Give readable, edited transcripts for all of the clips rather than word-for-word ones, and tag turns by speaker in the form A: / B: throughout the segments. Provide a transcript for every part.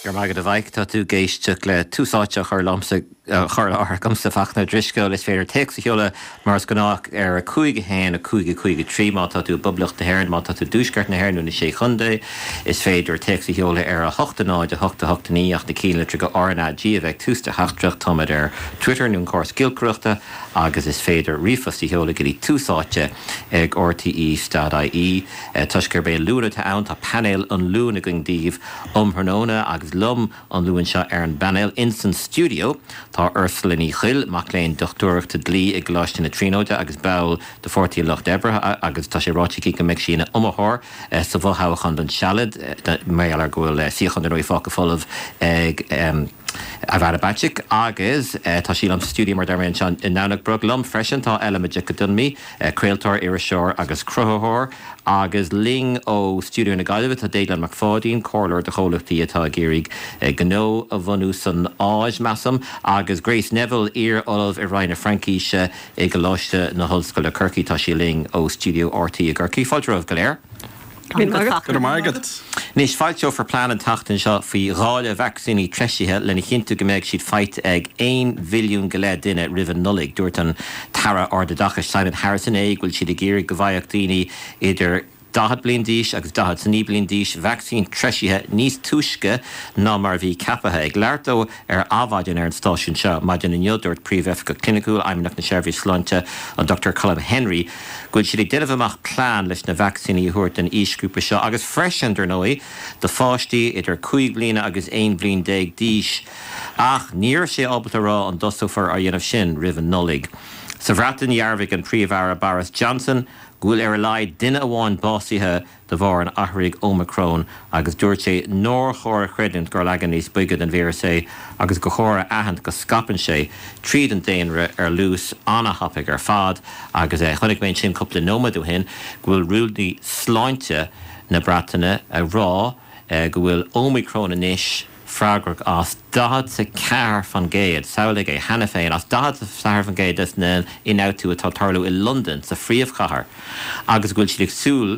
A: Go raibh maith agat a Mhaidhc. Tá tú ag éisteacht le Tús Áite á chur liomsa, á chur i láthair agamsa, Fachtna Ó Drisceoil. Is féidir téacs a sheoladh mar is gnách ar 5 1 5 5 3 má tá tú i bPoblacht na hÉireann, má tá tú i dTuaisceart na hÉireann nó na Sé Chontae. Is féidir téacs a sheoladh ar 8 0 8 8 9 ach na cinnlitreacha RnaG a bheith ag tús do theachtaireacht. Táimid ar Twitter nó an córas giolcaireachta agus is féidir ríomhphost a sheoladh go dtí Tús Áite ag rte.ie. Toisc gurb é Luan atá ann, tá painéal an Luain againn daoibh um thráthnóna agus liom an Luan seo ar an bpainéal ins an stiúideo tá Ursula Ní Chuill, mac léinn dochtúireachta dlí i gColáiste na Tríonóide agus ball de Pháirtí an Lucht Oibre agus tá sé ráite aici go mbeidh sí ina iomaitheoir sa bhfothoghchán don Sealad mar gheall ar go bhfuil suíochán dar ndóigh fágtha folamh ag Ivana Bacik agus tá sí liom sa stiúideo mar a deir mé anseo i nDomhnach Broc. Liom freisin tá Ella Majekodunmi, craoltóir, iriseoir agus cruthaitheoir, agus linn ó stiúideo na Gaillimhe tá Déaglán Mac Pháidín, comhairleoir do chomhlachtaí atá ag iarraidh gnó a bhunú san Áis, measaim, agus Grace Neville, iar-ollamh i Roinn na Fraincíse i gColáiste na hOllscoile Corcaigh. Tá sí linn ó stiúideo RTÉ i gCorcaigh. Fáilte romhaibh go léir.
B: Go raibh maith agat.
A: Anois, foilseofar plean an tseachtain seo faoi dháileadh vacsaíní treisithe lena chinntiú go mbeidh siad faighte ag 1 mhilliún go leith duine roimh an Nollaig. Dúirt an tAire Ardoideachais Simon Harris inné go bhfuil siad ag iarraidh go bhfaigheadh daoine idir 40 bliain d'aois agus 49 bliain d'aois vacsaín treisithe níos túisce ná mar a bhí ceaptha. Ag labhairt dó Ar Adhmhaidin ar an stáisiún seo maidin inniu, dúirt Príomhoifigeach Cliniciúil Fheidhmeannacht na Seirbhíse Sláinte, an Dr Colm Henry, go bhfuil siad ag déanamh amach plean leis na vacsaíní a thabhairt don aoisghrúpa seo agus freisin, dar ndóigh, do pháistí idir 5 bliana agus 11 bhliain d'aois. Ach ní raibh sé ábalta a rá an dtosófar á dhéanamh sin roimh an Nollaig. Sa Bhreatain, dhearbhaigh an Príomh-Aire Boris Johnson go bhfuil ar a laghad duine amháin básaithe de bharr an athraithigh Ómacrón agus dúirt sé nár chóir a chreidiúint gur leagan níos boige den víreas é agus gur chóir a aithint go scaipeann sé tríd an daonra ar luas an-thapaidh ar fad agus chonaic mé ansin cúpla nóiméad ó shin go bhfuil rúnaí sláinte na Breataine ag rá go bhfuil Ómacrón anois freagrach as 44%, samhlaigh é, cheana féin, as 44% des na ionfhabhtú atá ag tarlú i Londain, sa phríomhchathair, agus go bhfuil siad ag súil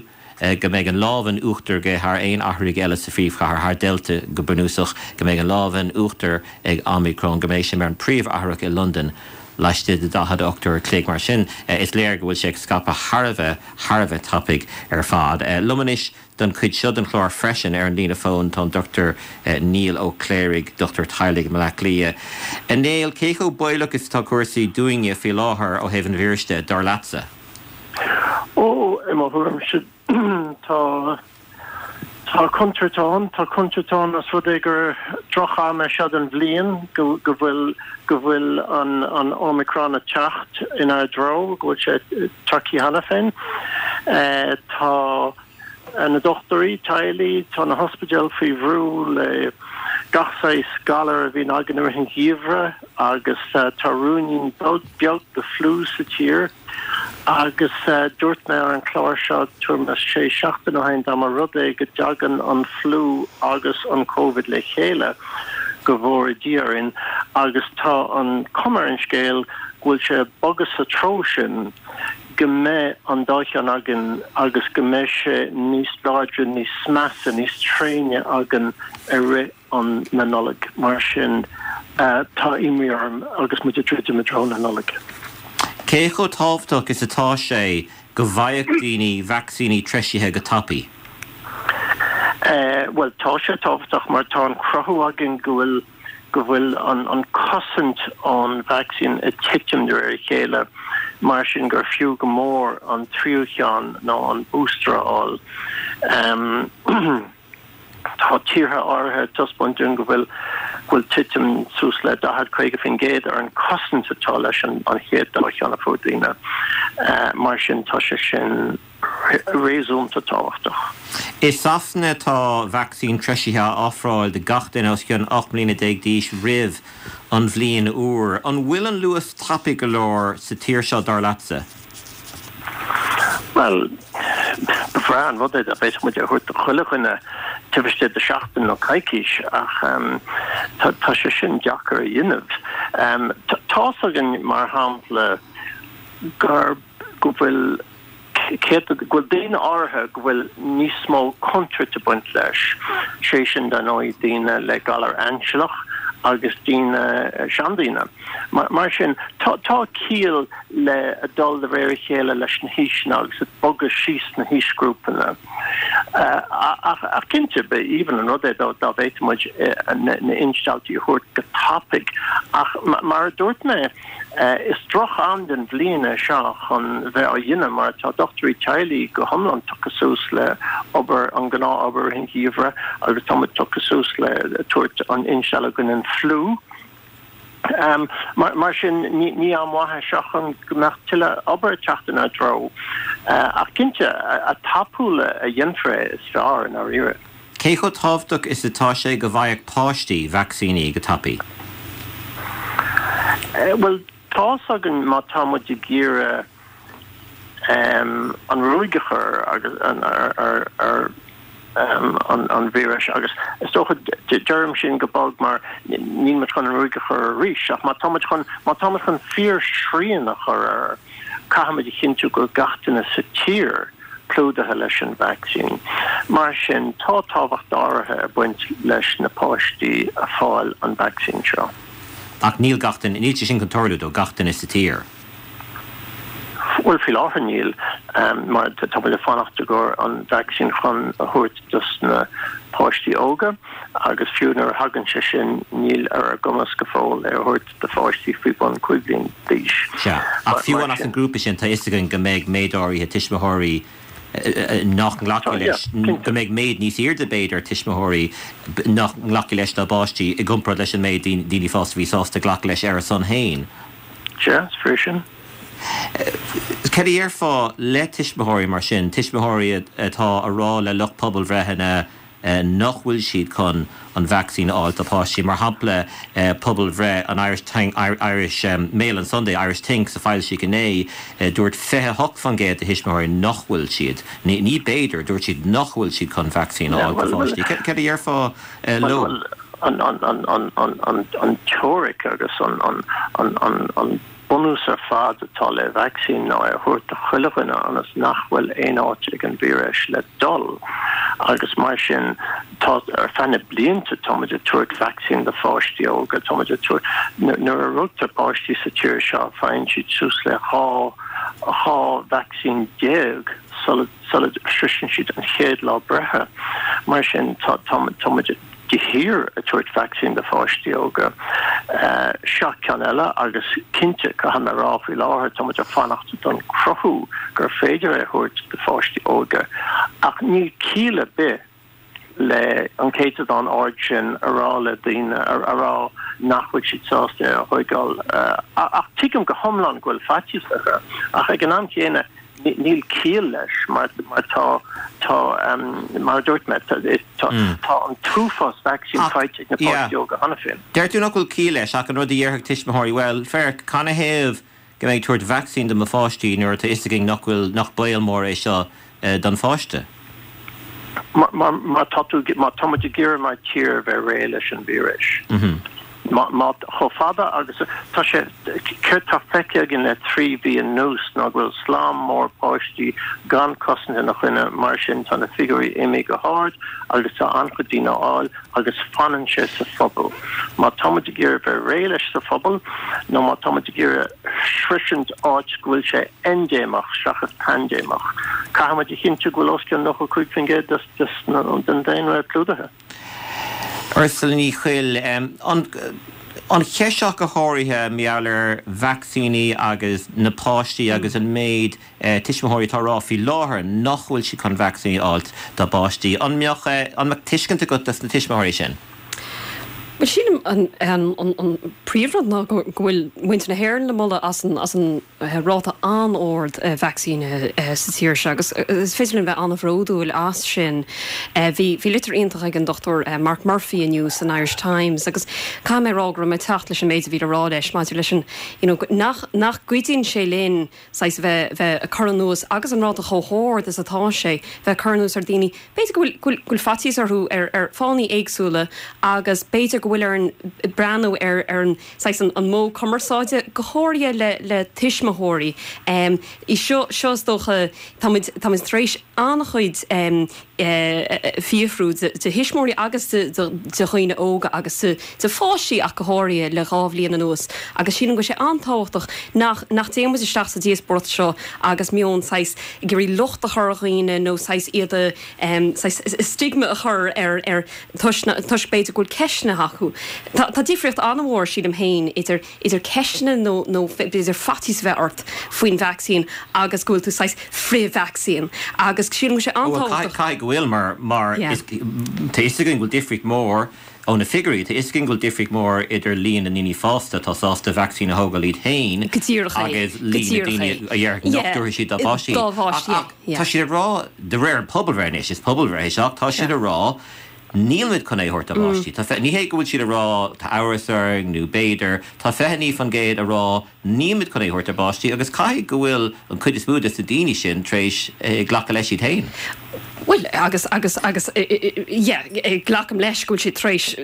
A: go mbeidh an lámh in uachtar aige thar aon athraigh eile sa phríomhchathair, thar Delta go bunúsach, go mbeidh an lámh in uachtar ag Omicron, go mbeidh sé mar an príomhathrach i Londain laistigh de 48 uair a chloig. Mar sin, is léir go bhfuil sé ag scaipeadh thar a bheith, thar a bheith tapaidh ar fad. Liom anois Don chuid seo den chlár freisin, ar an líne fóin tá an Dr Niall Ó Cléirigh, dochtúir teaghlaigh i mBleá Cliath. A Néill, cé chomh baolach is atá cúrsaí dúinne faoi láthair ó thaobh an víris de, dar leatsa?
B: Ó, i mo thuairimse, tá, tá contúirt ann. Tá contúirt ann os rud é gur droch-am é seo den bhliain, go, go bhfuil, go bhfuil an, an Omicron ag teacht inár dtreo, go bhfuil sé tagtha cheana féin. Tá na dochtúirí teaghlaigh, tá na hospidéil faoi bhrú le gach saghas galar a bhíonn againn i rith an gheimhridh agus tá ruainnín beag de fliú sa tír agus dúirt mé ar an chlár seo tuairim is sé seachtaine ó shin dá mba rud é go dtagann an fliú agus an Covid le chéile go bhfóire Dia orainn agus tá an cuma ar an scéal go bhfuil sé ag bogadh sa treo sin. go mbeidh an dá cheann againn agus go mbeidh sé níos láidre, níos measa, níos tréine againn i rith an na Nollag. Mar sin, tá imní orm agus muid ag druidim i dtreo na Nollag.
A: Cé chomh tábhachtach is atá sé go bhfaigheadh daoine vacsaíní treisithe go tapaidh?
B: Bhuel, tá sé tábhachtach mar tá an cruthú againn go bhfuil go bhfuil an cosaint ón vacsaín ag titim de réir a chéile, mar sin gur fiú go mór an tríú cheann nó an booster a fháil. Tá tíortha áirithe ag taispeáint dúinn go bhfuil go bhfuil titim suas le 40, 50% ar an cosaint atá leis an chéad dá cheann a fuair daoine. Mar sin tá sé sin. réasúnta tábhachtach.
A: I Sasana tá vacsaín treisithe á ofráil do gach duine os cionn 18 mbliana d'aois roimh an bhliain úr. An bhfuil an luas tapaidh go leor sa tír seo, dar leatsa?
B: Bhuel, ba bhreá an rud é dá bhféadfadh muid é a thabhairt do chuile dhuine taobh istigh de sheachtain nó coicís ach tá sé sin deacair a dhéanamh. Tá's againn, mar shampla, gur, go bhfuil. Céard, go bhfuil daoine áirithe go bhfuil níos mó contúirt ag baint leis, sé sin dar ndóigh daoine le galar ainsealach agus daoine, seandaoine. Mar sin, tá ciall le dul de réir a chéile leis na haoiseanna agus ag bogadh síos na haoisghrúpanna. Ach cinnte, ba aoibhinn an rud é dá bhféadfadh muid na instealltaí a thabhairt go tapaidh. Ach mar a dúirt mé, is droch-am den bhliain é seo chun bheith á dhéanamh mar tá dochtúirí teaghlaigh go hiomlán tugtha suas le obair, an gnáth-obair i rith an gheimhridh agus tá muid tugtha suas le tabhairt an instealladh i gcoinne an fliú. Mar sin, ní am mhaith é seo chun go mbeadh tuilleadh obair ag teacht inár dtreo. Ach cinnte, a tapúla a dhéanfar é, is fearr, i ndáiríre.
A: Cé chomh tábhachtach is atá sé go bhfaigheadh páistí vacsaíní go tapaidh?
B: Bhuel, tá's againn má tá muid ag iarraidh an ruaig a chur ar ar an víreas agus is dócha, deirim sin go bog mar níl muid chun an ruaig a chur arís ach má tá muid chun, má tá muid chun fíor-shrian a chur air, caithfidh muid a chinntiú go bhfuil gach duine sa tír clúdaithe leis an vacsaín. Mar sin, tá tábhacht áirithe ag baint leis na páistí a fáil an vacsaín seo.
A: Ach níl gach duine, níl sé sin chun tarlú do gach duine sa tír.
B: Bhuel, faoi láthair níl, mar tá muid ag fanacht i gcomhair an vacsaín chun a thabhairt dos na páistí óga agus fiú nuair a thagann sé sin níl ar ár gcumas go fóill é a thabhairt do pháistí faoi bhun 5 bliain d'aois.
A: Sea, ach fiú amháin as an ngrúpa sin tá fhios againn go mbeidh méid áirithe tuismitheoirí nach nglacfaidh leis, go mbeidh méid níos airde b'fhéidir tuismitheoirí nach nglacfaidh leis dá bpáistí i gcomparáid leis an méid daoine fásta a bhí sásta glacadh leis ar a son féin.
B: Sea, is fíor sin.
A: Cad a dhéarfá le tuismitheoirí mar sin, tuismitheoirí atá a rá le lucht pobalbhreitheanna nach bhfuil siad chun an vacsaín a fháil dá bpáistí? Mar shampla, pobalbhreith an Irish Irish Mail on Sunday, Irish Think, a foilsíodh inné, dúirt 28% de thuismitheoirí nach bhfuil siad, ní b'fhéidir, dúirt siad nach bhfuil siad chun vacsaín a fháil dá bpáistí. Cad a dhéarfá leo?
B: An teoiric agus an bunús ar fad atá le vacsaín ná é a thabhairt do chuile dhuine ionas nach bhfuil aon áit ag an víreas le dul agus mar sin tá ar feadh na blianta tá muid ag tabhairt vacsaín do pháistí óga, tá muid ag tabhairt, nuair a rugtar páistí sa tír seo faigheann siad suas le 12 2 vacsaín sula sula sroiseann siad an chéad lá breithe. Mar sin tá tá muid de shíor ag tabhairt vacsaín do pháistí óga. Seo ceann eile agus cinnte, caithfidh mé a rá faoi láthair, tá muid ag fanacht don cruthú gur féidir é a thabhairt do pháistí óga ach níl ciall ar bith le an céatadán ard sin a rá le daoine, a rá nach bhfuil siad sásta é a thóigeáil. Ach tuigim go hiomlán go bhfuil faitíos orthu ach ag an am chéanna, Níl ciall leis mar tá, tá, mar a dúirt mé, tá an t-uafás vacsaín faighte ag na páistí óga cheana féin.
A: Deir tú nach bhfuil ciall leis ach an rud a dhéarfadh tuismitheoirí, bhuel, féach, canathaobh go mbeinn ag tabhairt vacsaín do mo pháistí nuair atá fhios againn nach bhfuil, nach baol mór é seo don pháiste?
B: Má tá tú, má tá muid ag iarraidh mar tír a bheith réidh leis an víreas, má, má, chomh fada agus tá sé, céard tá feicthe againn le 3 mhí anuas ná go bhfuil slám mór páistí gan cosaint ina choinne, mar sin tá na figiúirí imithe go hard agus tá an-chuid daoine á fháil agus fanann sé sa phobal. Má tá muid ag iarraidh bheith réidh leis sa phobal nó má tá muid ag iarraidh sroisint áit go bhfuil sé eindéimeach seachas paindéimeach. Caithfidh muid a chinntiú go bhfuil os cionn 95% den daonra clúdaithe.
A: Ursula Ní Chuill, An cheist seo go háirithe mar gheall ar vacsaíní agus na páistí agus an méid tuismitheoirí atá ag rá faoi láthair nach bhfuil siad chun vacsaíní a fháilt dá bpáistí. An mbeadh an mbeadh tuiscint agat dos na tuismitheoirí sin?
C: Bhuel, sílim an príomhrud ná go bhfuil muintir na hÉireann le moladh as an ráta an-ard vacsaínithe sa tír seo agus is féidir linn bheith an-bhródúil as sin. Bhí litir iontach ag an Dr Mark Murphy inniu san Irish Times agus caithfidh mé a rá go raibh mé ag teacht leis an méid a bhí le rá leis maidir leis an you know nach nach gcuidíonn sé linn saghas bheith bheith ag cur anuas agus an ráta chomh hard is atá sé bheith ag cur anuas ar daoine B'fhéidir go bhfuil, go bhfuil, go bhfuil faitíos orthu ar, ar fáthanna éagsúla agus b'fhéidir go. go bhfuil orainn breathnú ar ar an saghas an an modh cumarsáide, go háirithe le le tuismitheoirí. Í seo seo is dócha táimid táimid tar éis an-chuid fiafrú de thuismitheoirí agus de dhaoine óga agus de pháistí ach go háirithe le 2 bhliain anuas agus sílim go bhfuil sé an-tábhachtach nach nach dtéann muid isteach sa díospóireacht seo agus meon saghas ag iarraidh locht a chur ar dhaoine nó saghas iad a saghas stigma a chur ar ar toisc toisc b'fhéidir go bhfuil ceisteanna acu. Tá tá difríocht an-mhór sílim féin idir idir ceisteanna nó nó b'fhéidir faitíos a bheith ort faoin vacsaín agus go bhfuil tú saghas frith-vacsaín agus sílim go bhfuil sé
A: an-tábhachtach. Caithfidh go bhfuil mar mar is tá fhios againn go bhfuil difríocht mhór ó na figiúirí, tá fhios againn go bhfuil difríocht mhór idir líon na ndaoine fásta atá sásta vacsaín a thógáil iad féin agus líon na daoine a déarfadh nach dtabharfaidh siad dá bpáistí. Ach tá siad ag rá, de réir an pobalbhreith anois, is pobalbhreith é seo, ach tá siad ag rá Nílimid chun é a thabhairt dár bpáistí. Tá, ní hé go bhfuil siad ag rá tá amhras orainn nó b'fhéidir, tá 29% ag rá nílimid chun é a thabhairt dár bpáistí agus caithfidh go bhfuil an chuid is mó de na daoine sin tar éis glacadh leis iad féin.
C: Bhuel, agus, agus, agus, yeah, glacaim leis go bhfuil siad tar éis,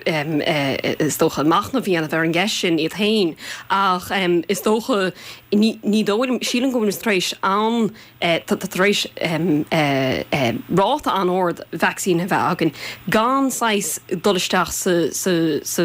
C: is dócha, machnamh a dhéanamh ar an gceist sin iad féin ach is dócha, ní, ní dóigh liom, sílim go bhfuilimid tar éis an, Tá tar éis ráta an-ard vacsaín a bheith againn gan saghas dul isteach sa, sa, sa,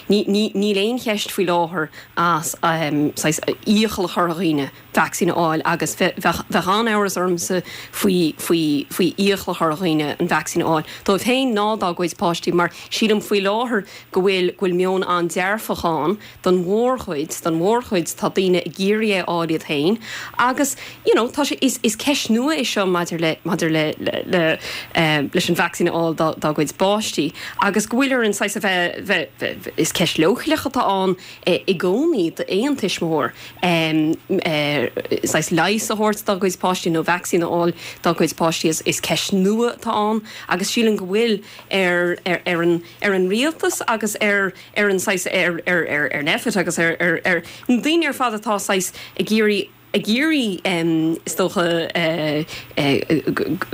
C: ní, ní, níl aon cheist faoi láthair as saghas iachall a chur ar dhaoine vacsaín a fháil agus bheadh, bheadh an-amhras ormsa faoi, faoi, faoi iachall a chur ar dhaoine an vacsaín a fháil dóibh féin ná dá gcuid páistí mar sílim faoi láthair go bhfuil, go bhfuil meon an-dearfach ann Don mhórchuid, don mhórchuid tá daoine ag iarraidh é a fháil iad féin agus you know tá sé, is, is ceist nua é seo maidir le, maidir le, le, le eh leis an vacsaín a fháil dá, dá gcuid bpáistí agus go bhfuil orainn saghas a bheith, bheith, bheith, is ceist leochaileach atá ann eh i gcónaí d'aon tuismitheoir em eh saghas leigheas a thabhairt dá gcuid páistí nó vacsaín a fháil dá gcuid páistí is, is ceist nua atá ann agus sílim go bhfuil ar, ar, ar an, ar an rialtas agus ar ar an saghas, ar, ar, ar, ar Nphet agus ar, ar, ar na daoine ar fad atá saghas ag iarraidh, ag iarraidh is dócha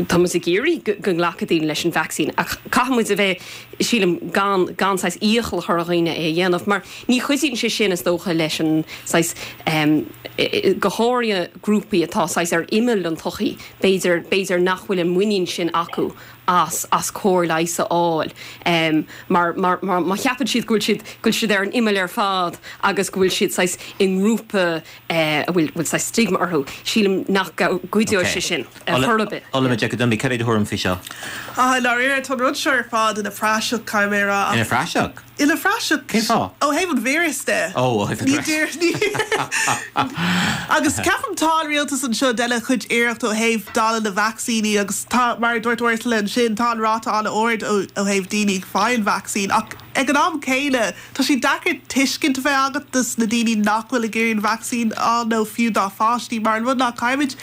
C: tá muid ag iarraidh go, go nglacfaidh daoine leis an vacsaín ach caithfidh muid a bheith, sílim, gan, gan saghas iachall a chur ar dhaoine é a dhéanamh mar ní chuidíonn sé sin is dócha leis an saghas go háirithe grúpaí atá saghas ar imeall an tsochaí, b'fhéidir, b'fhéidir nach bhfuil an muinín sin acu as as cóir leighis a fháil mar mar mar má cheapann siad go bhfuil siad go bhfuil siad ar an imeall ar fad agus go bhfuil siad saghas i ngrúpa a bhfuil bhfuil saghas stigma orthu, sílim nach gcuideoidh sé sin ar chor ar bith.
A: Ola Majekodunmi, cad é do thuairim faoi seo?
D: Ah, i ndáiríre, tá an rud seo ar fad ina phraiseach, caithfidh mé a rá,
A: ach. Ina phraiseach?
D: Ina phraiseach.
A: Cén fáth?
D: Ó thaobh an víris de.
A: Ó, ó thaobh an víris.
D: Ní Agus ceapaim tá an rialtas anseo ag déanamh chuid iarracht ó thaobh dáileadh na vacsaíní agus tá, mar a dúirt Ursula ansin, tá an ráta an-ard ó thaobh daoine ag fáil an vacsaín ach ag an am céanna tá sé deacair tuiscint a bheith agat dos na daoine nach bhfuil ag iarraidh an vacsaín a fháil nó fiú dá pháistí mar an rud ná caithfimid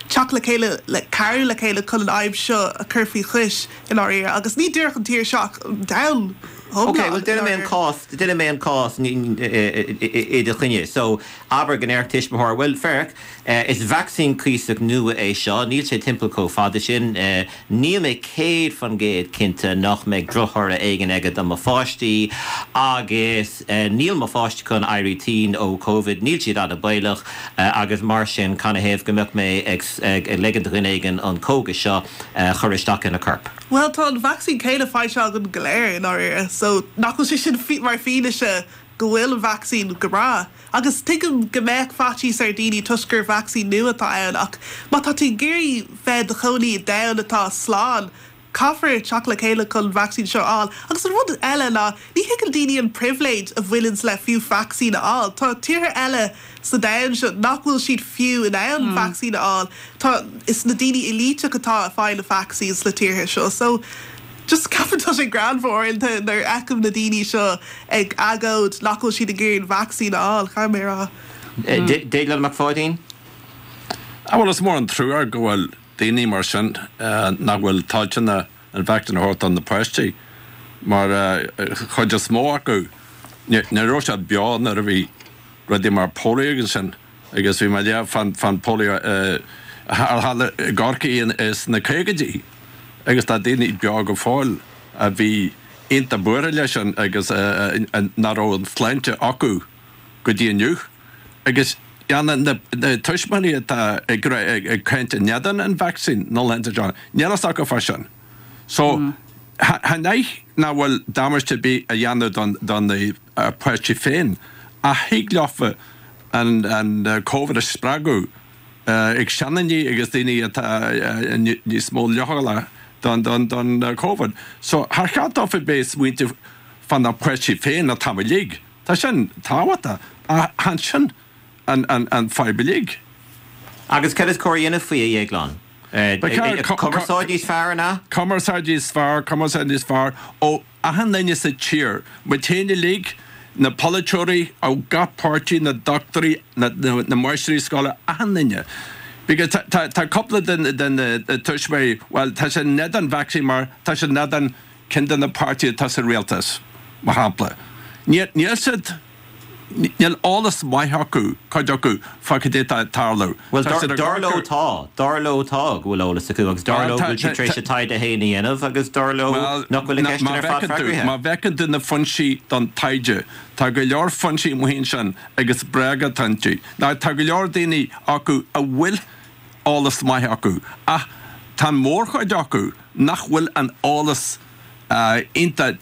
D: teacht le chéile le cabhrú le chéile chun an fhadhb seo a chur faoi chois i ndáiríre agus ní díreach an tír seo ach an domhan.
A: Ok, bhuel déanfaidh mé an cás, déanfaidh mé an cás i do choinne. So, abair go ndéarfadh tuismitheoir, bhuel, féach, is vacsaín cuíosach nua é seo, níl sé timpeall chomh fada sin, níl mé 100% cinnte nach mbeidh drochthoradh éigin aige do mo pháistí agus níl mo pháistí chun éirí tinn ó Covid, níl siad an-baolach agus mar sin canathaobh go mbeadh mé ag ligean do dhuine éigin an cógas seo a chur isteach ina corp?
D: Bhuel, tá an vacsaín céanna faighte againn go léir, i ndáiríre, so nach bhfuil sé sin mar fianaise go bhfuil an vacsaín go breá? Agus tuigim go mbeadh faitíos ar daoine toisc gur vacsaín nua atá ann, ach má tá tú ag iarraidh bheith i do chónaí i domhan atá slán, caithfear teacht le chéile chun an vacsaín seo a fháil. Agus an rud eile ná, ní thuigeann daoine an pribhléid a bhaineanns le fiú vacsaín a fháil. Tá tíortha eile sa domhan seo nach bhfuil siad fiú in ann vacsaín a fháil. Tá, is na daoine éilíteach atá ag fáil na vacsaín sna tíortha seo. So, just ceapaim tá sé greannmhar uaireanta nuair a fheicim na daoine seo ag agóid nach bhfuil siad ag iarraidh an vacsaín a fháil, caithfidh mé a rá.
A: Déaglán Mac Pháidín?
E: Ah bhuel is mór an trua go bhfuil daoine mar sin nach bhfuil toilteanach an vacsaín a thabhairt do na páistí mar chuid is mó acu ní raibh siad beo nuair a bhí rudaí mar polio agus sin agus bhí mé ag léamh fán fán polio a tharla i gCorcaigh sna caogaidí agus tá daoine beo go fóill a bhí. iontach buartha leis sin agus nach raibh an tsláinte acu go dtí inniu. Agus na tuismitheoirí atá ag caint in éadan an vacsaín na laethanta seo, níl fhios acu fá sin. So, chan é nach bhfuil damáiste ar bith a dhéanamh do na páistí féin, ach thig leofa an Covid a spreagadh ag seandaoine agus daoine atá níos mó leochaileach don Covid. So, char cheart dófa bheith ag smaointeamh fá na páistí féin an t-am uilig. Tá sin tábhachtach, ach chan sin an fadhb uilig.
A: Agus cad is cóir a dhéanamh faoi, a Dhéagláin? Cumarsáid níos fearr, an ea?
E: Cumarsáid níos fearr, cumarsáid níos fearr ó achan duine sa tír, muid féin uilig, na polaiteoirí ó gach páirtí, na dochtúirí, na máistrí scoile, achan duine. Because tá cúpla de na tuismitheoirí, bhuel, tá siad in éadan vacsaín mar tá siad in éadan ceann de na páirtithe atá sa rialtas, mar shampla. Níl siad, níl eolas maith acu, cuid acu, fá cad é atá ag tarlú.
A: Bhuel, dar leo tá, dar leo tá go bhfuil eolas acu agus dar leo go bhfuil siad tar éis a dtaighde féin a dhéanamh agus dar leo nach bhfuil na ceisteanna ar fad freagraithe.
E: Má bhfeiceann tú na foinsí don taighde, tá go leor foinsí amuigh ansin agus bréaga atá iontu. Now, tá go leor daoine acu a bhfuil eolas maith acu ach tá an mhórchuid acu nach bhfuil an eolas iontach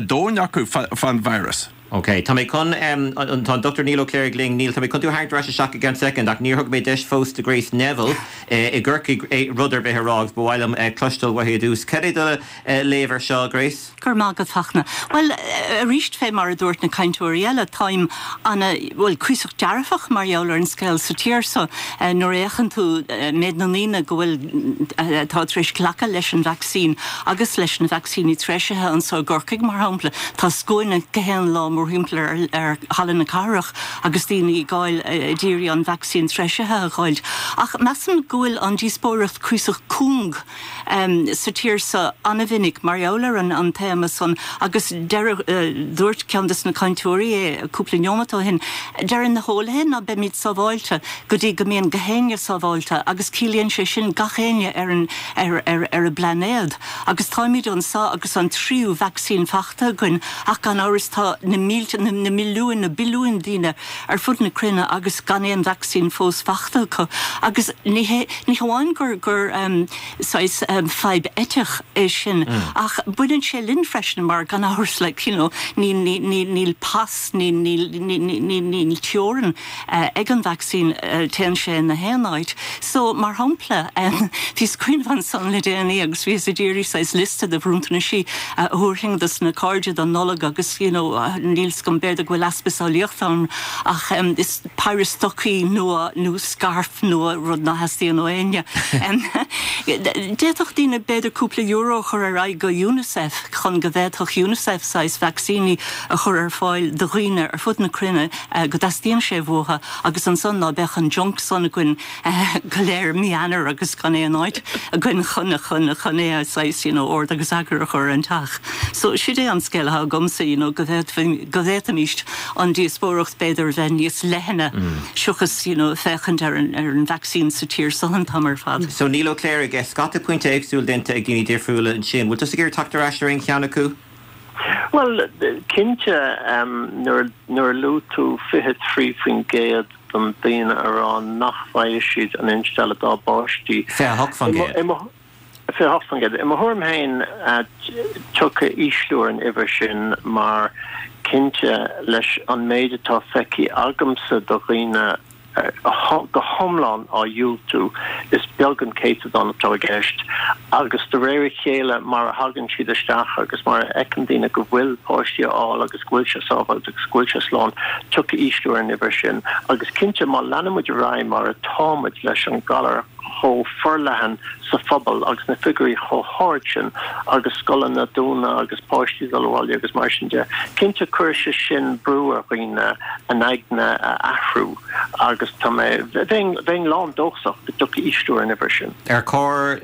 E: domhain acu fán virus.
A: Ok, tá mé chun, tá an Dr Niall Ó Cléirigh linn. Niall, tá mé chun tú a tharraingt ar ais isteach i gceann soicind ach níor thug mé deis fós do Grace Neville i gCorcaigh rud ar bith a rá agus ba mhaith liom cloisteáil uaithi i dtús. Cad é do léamh ar seo, Grace?
F: Go raibh maith agat, Fachtna. Bhuel, arís, fé mar a dúirt na cainteoirí eile, táim ana, bhuel, cuíosach dearfach mar gheall ar an scéal sa tír so. Nuair a fhéachann tú méid na ndaoine go bhfuil, atá tar éis glacadh leis an vacsaín agus leis na vacsaíní treisithe anso i gCorcaigh, mar shampla, tá scuaine gach aon lá mórthimpeall ar, ar Halla na Cathrach agus daoine ag gabháil, ag iarraidh an vacsaín treisithe a dh'fháilt. Ach measaim go bhfuil an díospóireacht cuíosach cúng sa tír so ana-mhinic mar gheall ar an téama san agus deir, dúirt ceann des na cainteoirí é cúpla neomat ó shin, deireann na heolaithe ná beimid sábháilte go dtí go mbíonn gach éinne sábháilte agus ciallaíonn sé sin gach éinne ar an, ar, ar, ar an bplainéad. Agus táimid anso agus an tríú vacsaín fachta againn ach gan amhras tá na mílte, na milliúin, na billiúin daoine ar fud na cruinne agus gan aon vacsaín fós fachta acu. Agus ní hé, ní hamháin gur, gur saghas fadhb eiteach é sin ach baineann sé linn freisin mar gan amhras like you know ní, ní, ní, níl pas, ní, níl, ní, ní, níl teorainn ag an vacsaín, téann sé ina haon áit. So, mar shampla, bhíos ag cuimhneamh ansan le déanaí agus bhíos ag iarraidh saghas liosta de bhronntanais a thabharfainn dos na cairde don Nollaig agus you know níl 's agam, b'fhéidir go bhfuil easpa samhlaíochta orm ach is péire stocaí nua nó scairf nua, rud ná theastaíonn ó éinne. D'fhéadfadh daoine b'fhéidir cúpla euro a chur ar aghaidh go UNICEF chun go bhféadfadh UNICEF saghas vacsaíní a chur ar fáil do dhaoine ar fud na cruinne go dteastaíonn sé uathu agus ansan ná beadh an junk san againn go léir mí Eanáir agus gan aon áit againn chun chun chun é a saghas you know ord agus eagar a chur ar an teach. So sid é an scéal atá agamsa you know go bhféadfainn go bhféadfaimíst an díospóireacht b'fhéidir a bheith níos leithne seachas you know féachaint ar an ar an vaccine sa tír so an t-am ar fad.
A: So Niall Ó Cléirigh, scata pointe éagsúil déanta ag daoine difriúla ansin. Bhfuil tusa ag iarraidh teacht ar ais ar aon cheann acu?
B: Bhuel, cinnte, nuair a luaigh tú 23% den daoine a rá nach bhfaighidh siad an instealladh dá bpáistí.
A: 28%.
B: 28%. I mo thuairim féin, tiocfaidh ísliú ar an uimhir sin mar, cinnte, leis an méid atá feicthe agamsa de dhaoine go hiomlán á dhiúltú, is beag an céatadán atá i gceist agus de réir a chéile mar a thagann siad isteach agus mar a fheiceann daoine go bhfuil páistí á fháil agus go bhfuil sé sábháilte agus go bhfuil sé slán, tiocfaidh ísliú ar an uimhir sin agus cinnte má leanann muid ar aghaidh mar atá muid leis an galar chomh forleathan sa phobal agus na figiúirí chomh hard sin agus scoileanna ag dúnadh agus páistí ag dul abhaile agus mar sin de. Cinnte cuirfidh sé sin brú ar dhaoine a n-aigne a athrú agus tá mé, bheinn, bheinn lán dóchasach go dtiocfaidh ísliú ar an uimhir sin.
A: Ar chóir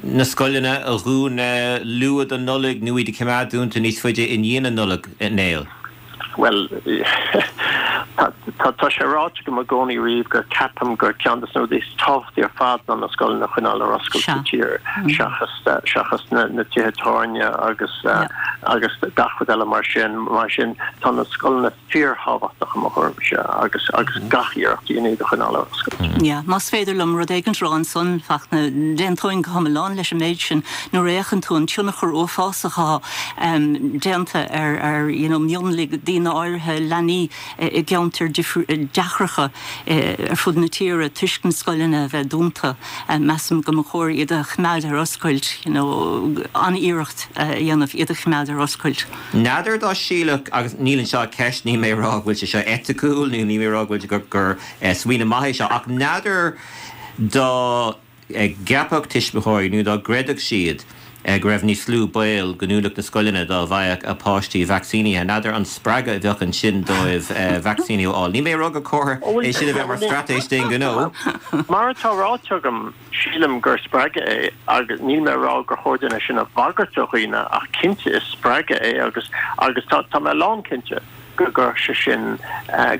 A: na scoileanna a dhúnadh luath don Nollaig nó iad a choimeád dúnta níos faide i ndiaidh na Nollag, Niall?
B: Bhuel. Tá sé ráite agam i gcónaí riamh gur ceapaim gur ceann de na rudaí is tábhachtaí ar fad ná na scoileanna a choinneáil ar oscailt sa tír seachas seachas na tithe tábhairne agus agus gach rud eile mar sin. Mar sin tá na scoileanna fíorthábhachtach i mo thuairimse agus agus gach iarracht a dhéanamh iad a choinneáil ar
F: oscailt. Yeah, más féidir liom rud éigint a rá ansan, Fachtna, d'aontóinn go hiomlán leis an méid sin. Nuair a fhéachann tú an tionchar uafásach atá déanta ar ar you know mionlaigh daoine áirithe, leanaí i gceantair deacracha ar fud na tíre toisc na scoileanna a bheith dúnta, measaim go mba chóir iad a choimeád ar oscailt, you know an-iarracht a dhéanamh iad a choimeád ar oscailt.
A: N'fheadar dá sílfeadh, agus níl anseo ach ceist, níl mé ag rá go bhfuil sé seo eiticiúil nó níl mé ag rá go bhfuil gur gur smaoineamh maith é seo, ach n'fheadar dá gceapfadh tuismitheoirí nó dá gcreidfeadh siad go raibh níos lú baol go ndúnfadh na scoileanna dá bhfaigheadh a bpáistí vacsaínithe. N'fheadar an spreagadh a bheadh ansin dóibh vacsaíniú a fháil. Níl mé ag rá gur chóir é sin a bheith mar straitéis d'aon ghnó.
B: Mar atá ráite agam, sílim gur spreagadh é agus níl mé ag rá gur chóir dúinn é sin a bhagairt ar dhaoine ach cinnte is spreagadh é agus agus tá tá mé lánchinnte go gcuirfeadh sé sin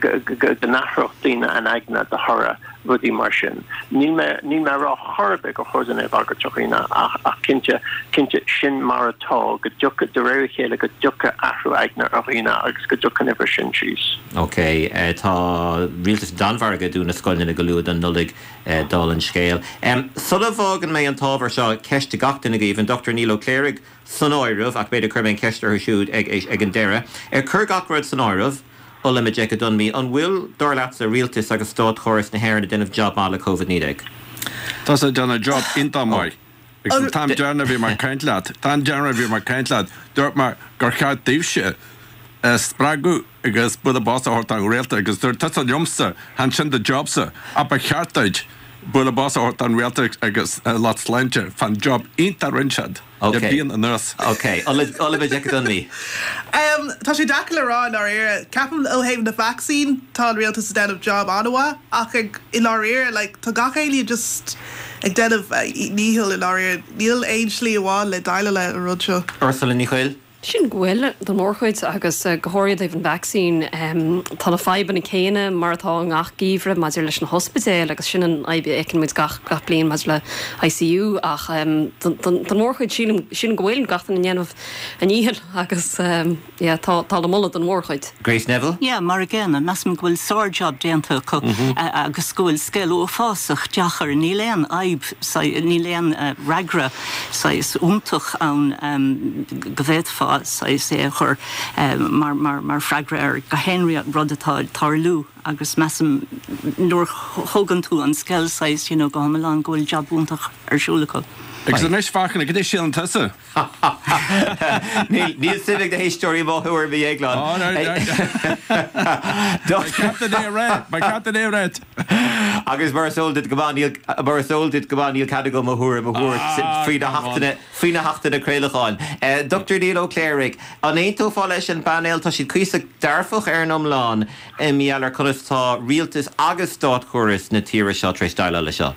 B: go go go n-athródh daoine a n-aigne de thoradh rudaí mar sin. Níl mé níl mé ag rá chor ar bith gur chóir dúinn é a bhagairt ar dhaoine ach ach cinnte cinnte sin mar atá go dtiocfaidh de réir a chéile go dtiocfaidh athrú aigne ar dhaoine agus go dtiocfaidh an uimhir sin síos.
A: Ok, tá rialtas na Danmhairge ag dúnadh na scoileanna go luath don Nollaig. Dála an scéil. Sula bhfágann mé an t-ábhar seo, ceist do gach duine agaibh, an Dr Niall Ó Cléirigh san áireamh, ach b'fhéidir cuirfidh mé an cheist orthu siúd ag an deireadh. Ag cur gach rud san áireamh, Ola Majekodunmi, an bhfuil, dar leatsa, rialtas agus státchóras na hÉireann ag déanamh jab maith le Covid-19?
E: Tá siad ag déanamh job iontach maith. Agus an t-am deireanach a bhí mé ag caint leat, an t-am deireanach a bhí mé ag caint leat, dúirt mé gur cheart daoibhse spreagadh agus bualadh bos a thabhairt don rialtas agus dúirt tusa liomsa, chan sin do jobsa, ach ba cheart duit bualadh bos a thabhairt don rialtas agus lucht sláinte fán job iontach a rinne siad le bliain anuas.
A: Ok. Ola Majekodunmi.
D: Tá sé deacair le rá i ndáiríre. Ceapaim ó thaobh na vacsaín tá an rialtas ag déanamh job an-mhaith ach ag i ndáiríre like tá gach éinne just ag déanamh a ndícheall i ndáiríre. Níl aon slí amháin le déileáil le an rud seo.
A: Ursula Ní Chuill.
C: Sílim go bhfuil, don mhórchuid, agus go háirithe i dtaobh an vacsaín. Tá na fadhbanna céanna mar atá i ngach geimhreadh maidir leis na hospidéil agus sin an fhadhb a fheiceann muid gach gach bliain maidir le ICU ach don mhórchuid sílim sílim go bhfuil gach duine ag déanamh a ndícheall agus yeah tá tá le moladh don mhórchuid.
A: Grace Neville.
F: Yeah, mar a gcéanna, measaim go bhfuil sár-jab déanta acu agus go bhfuil scéal uafásach deacair. Níl aon fhadhb, níl aon fhreagra saghas iontach ann go bhféadfá saghas é a chur mar mar freagra ar gach aon rud atá ag tarlú agus measaim nuair a thógann tú an scéal saghas you know go hiomlán go bhfuil jab iontach ar siúl acu.
E: Agus anois Fachtna, cad é síleann tusa?
A: Níl suim ag na héisteoirí mo thuairim a Dhéagláin.
E: Ba cheart duit é a rá, ba cheart duit é a rá.
A: Agus mar is eol duit go maith, níl, mar is eol duit go maith, níl cead agam mo thuairim a thabhairt faoi na hachtanna, faoi na hachtanna craolacháin. Dr Niall Ó Cléirigh, an aontófá leis an bpainéal? Tá siad cuíosach dearfach ar an iomlán i ngeall ar conas tá rialtas agus státchóras na tíre seo tar éis déileáil leis seo.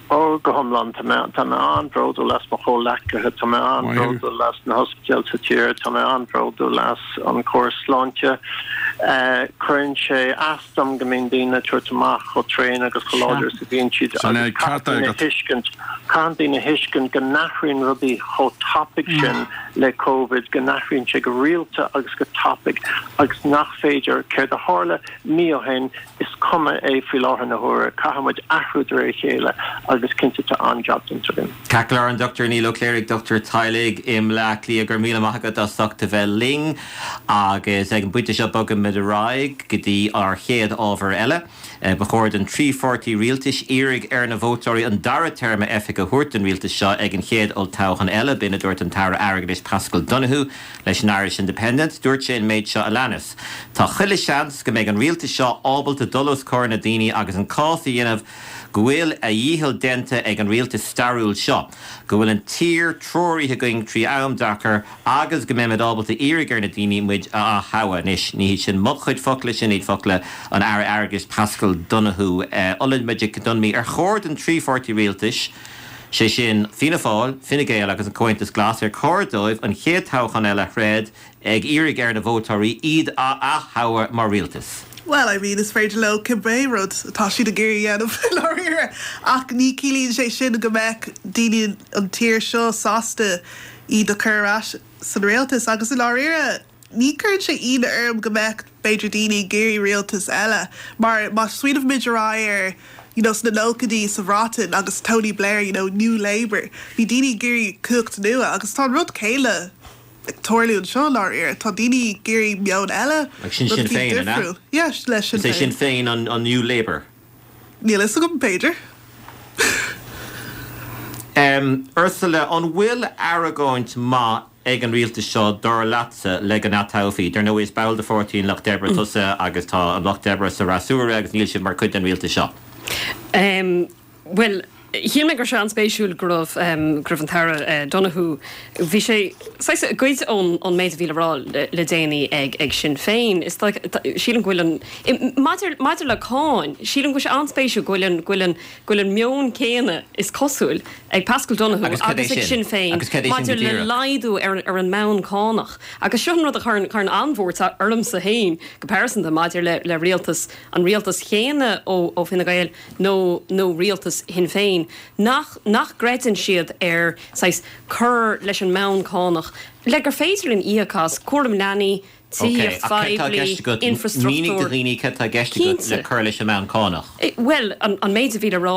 B: Ó, go hiomlán. Tá mé, tá mé an-bhródúil as mo chomhghleacaithe, tá mé an-bhródúil as na hospidéil sa tír, tá mé an-bhródúil as an córas sláinte. Cuireann sé as dom go mbíonn daoine ag tabhairt amach chomh tréan agus chomh láidir is a bhíonn siad agus caithfidh daoine a thuiscint, caithfidh daoine a thuiscint go n-athraíonn rudaí chomh tapaidh sin le Covid, go n-athraíonn sé go rialta agus go tapaidh agus nach féidir, céard a tharla mí ó shin, Is cuma é faoi láthair na huaire. Caithfidh muid athrú de réir a chéile agus cinnte tá an-jab déanta againn.
A: Ceart go leor, an Dr Niall Ó Cléirigh, dochtúir teaghlaigh i mBleá Cliath, go raibh míle maith agat as ucht a bheith linn agus ag an bpointe seo bogaimid ar aghaidh go dtí ár chéad ábhar eile. Ba chóir don trí pháirtí rialtais iarraidh ar na vótóirí an dara téarma oifige a thabhairt don rialtas seo ag an chéad olltoghchán eile, b'in a dúirt an tAire Airgeadais Paschal Donohoe leis an Irish Independent. Dúirt sé an méid seo a leanas. Tá chuile sheans go mbeidh an rialtas seo ábalta dul os comhair na daoine agus an cás a dhéanamh go bhfuil a dhícheall déanta ag an rialtas stairiúil seo, go bhfuil an tír treoraithe againn trí am deacair agus go mbeimid ábalta iarraidh ar na daoine muid a ath-thoghadh. Anois, ní hiad sin mo chuid focla, sin iad focla an Aire Airgeadais Paschal Donohoe. Ola Majekodunmi, ar chóir don trí pháirtí rialtais, sé sin Fianna Fáil, Fine Gael agus an Comhaontas Glas, ar chóir dóibh an chéad toghchán eile a throid ag iarraidh ar na vótóirí iad a ath-thoghadh mar rialtas.
D: Bhuel, I mean, is féidir leo cibé rud atá siad ag iarraidh a dhéanamh, i ndáiríre, ach ní ciallaíonn sé sin go mbeadh daoine an tír seo sásta iad a chur ar ais san rialtas. Agus i ndáiríre, ní chuireann sé ionadh orm go mbeadh, b'fhéidir, daoine ag iarraidh rialtas eile, mar má smaoinímid ar aghaidh ar, you know, sna nóchaidí sa Bhreatain agus Tony Blair, you know, New Labour, bhí daoine ag iarraidh cumhacht nua agus tá an rud céanna ag tarlú anseo i ndáiríre. Tá daoine ag iarraidh meon eile,
A: Like sin
D: rud
A: Sinn
D: éicint
A: Féin, an ea?
D: difriúil. Yeah, le Sinn
A: Is é
D: Féin.
A: Sinn Féin an an New Labour?
D: Níl fhios agam, b'fhéidir.
A: Em, Ursula, an bhfuil argóint maith ag an rialtas seo, dar leatsa, le go n-atoghfaí? Dar ndóigh, is ball de Pháirtí an Lucht Oibre tusa agus tá an Lucht Oibre sa fhreasúra agus níl siad mar chuid den rialtas seo.
C: Em, Bhuel, shíl mé go raibh sé an-spéisiúil go raibh, go raibh an tAire Donohoe, bhí sé saghas ag goid ón, ón méid a bhí le rá le déanaí ag, ag Sinn Féin. Is dóigh, sílim go bhfuil an, maidir, maidir le cáin, sílim go bhfuil sé an-spéisiúil go bhfuil an, go bhfuil an, go bhfuil an meon céanna, is cosúil, ag Paschal Donohoe
A: Agus cad é
C: agus ag
A: sin?
C: Sinn Féin
A: Agus cad é sin go
C: maidir le
A: díreach?
C: laghdú ar, ar an mbonn cánach. Agus seo an rud a chuireann, chuireann an-bhuairt ormsa féin go pearsanta maidir le, le rialtas, an rialtas chéanna ó, ó Fine Gael, nó nó rialtas Shinn Féin, nach nach gcreideann siad ar saghas cur leis an mbonn cánach le gur féidir linn íoc as cúram leanaí,
A: Ok,
C: tithíocht
A: ach céard tá i
C: phoiblí,
A: gceist agat? Mínigh do
C: infrastruchtúr.
A: dhaoine céard tá i gceist agat le
C: Cinnte.
A: cur leis an mbonn cánach.
C: Bhuel, an an méid a bhí le rá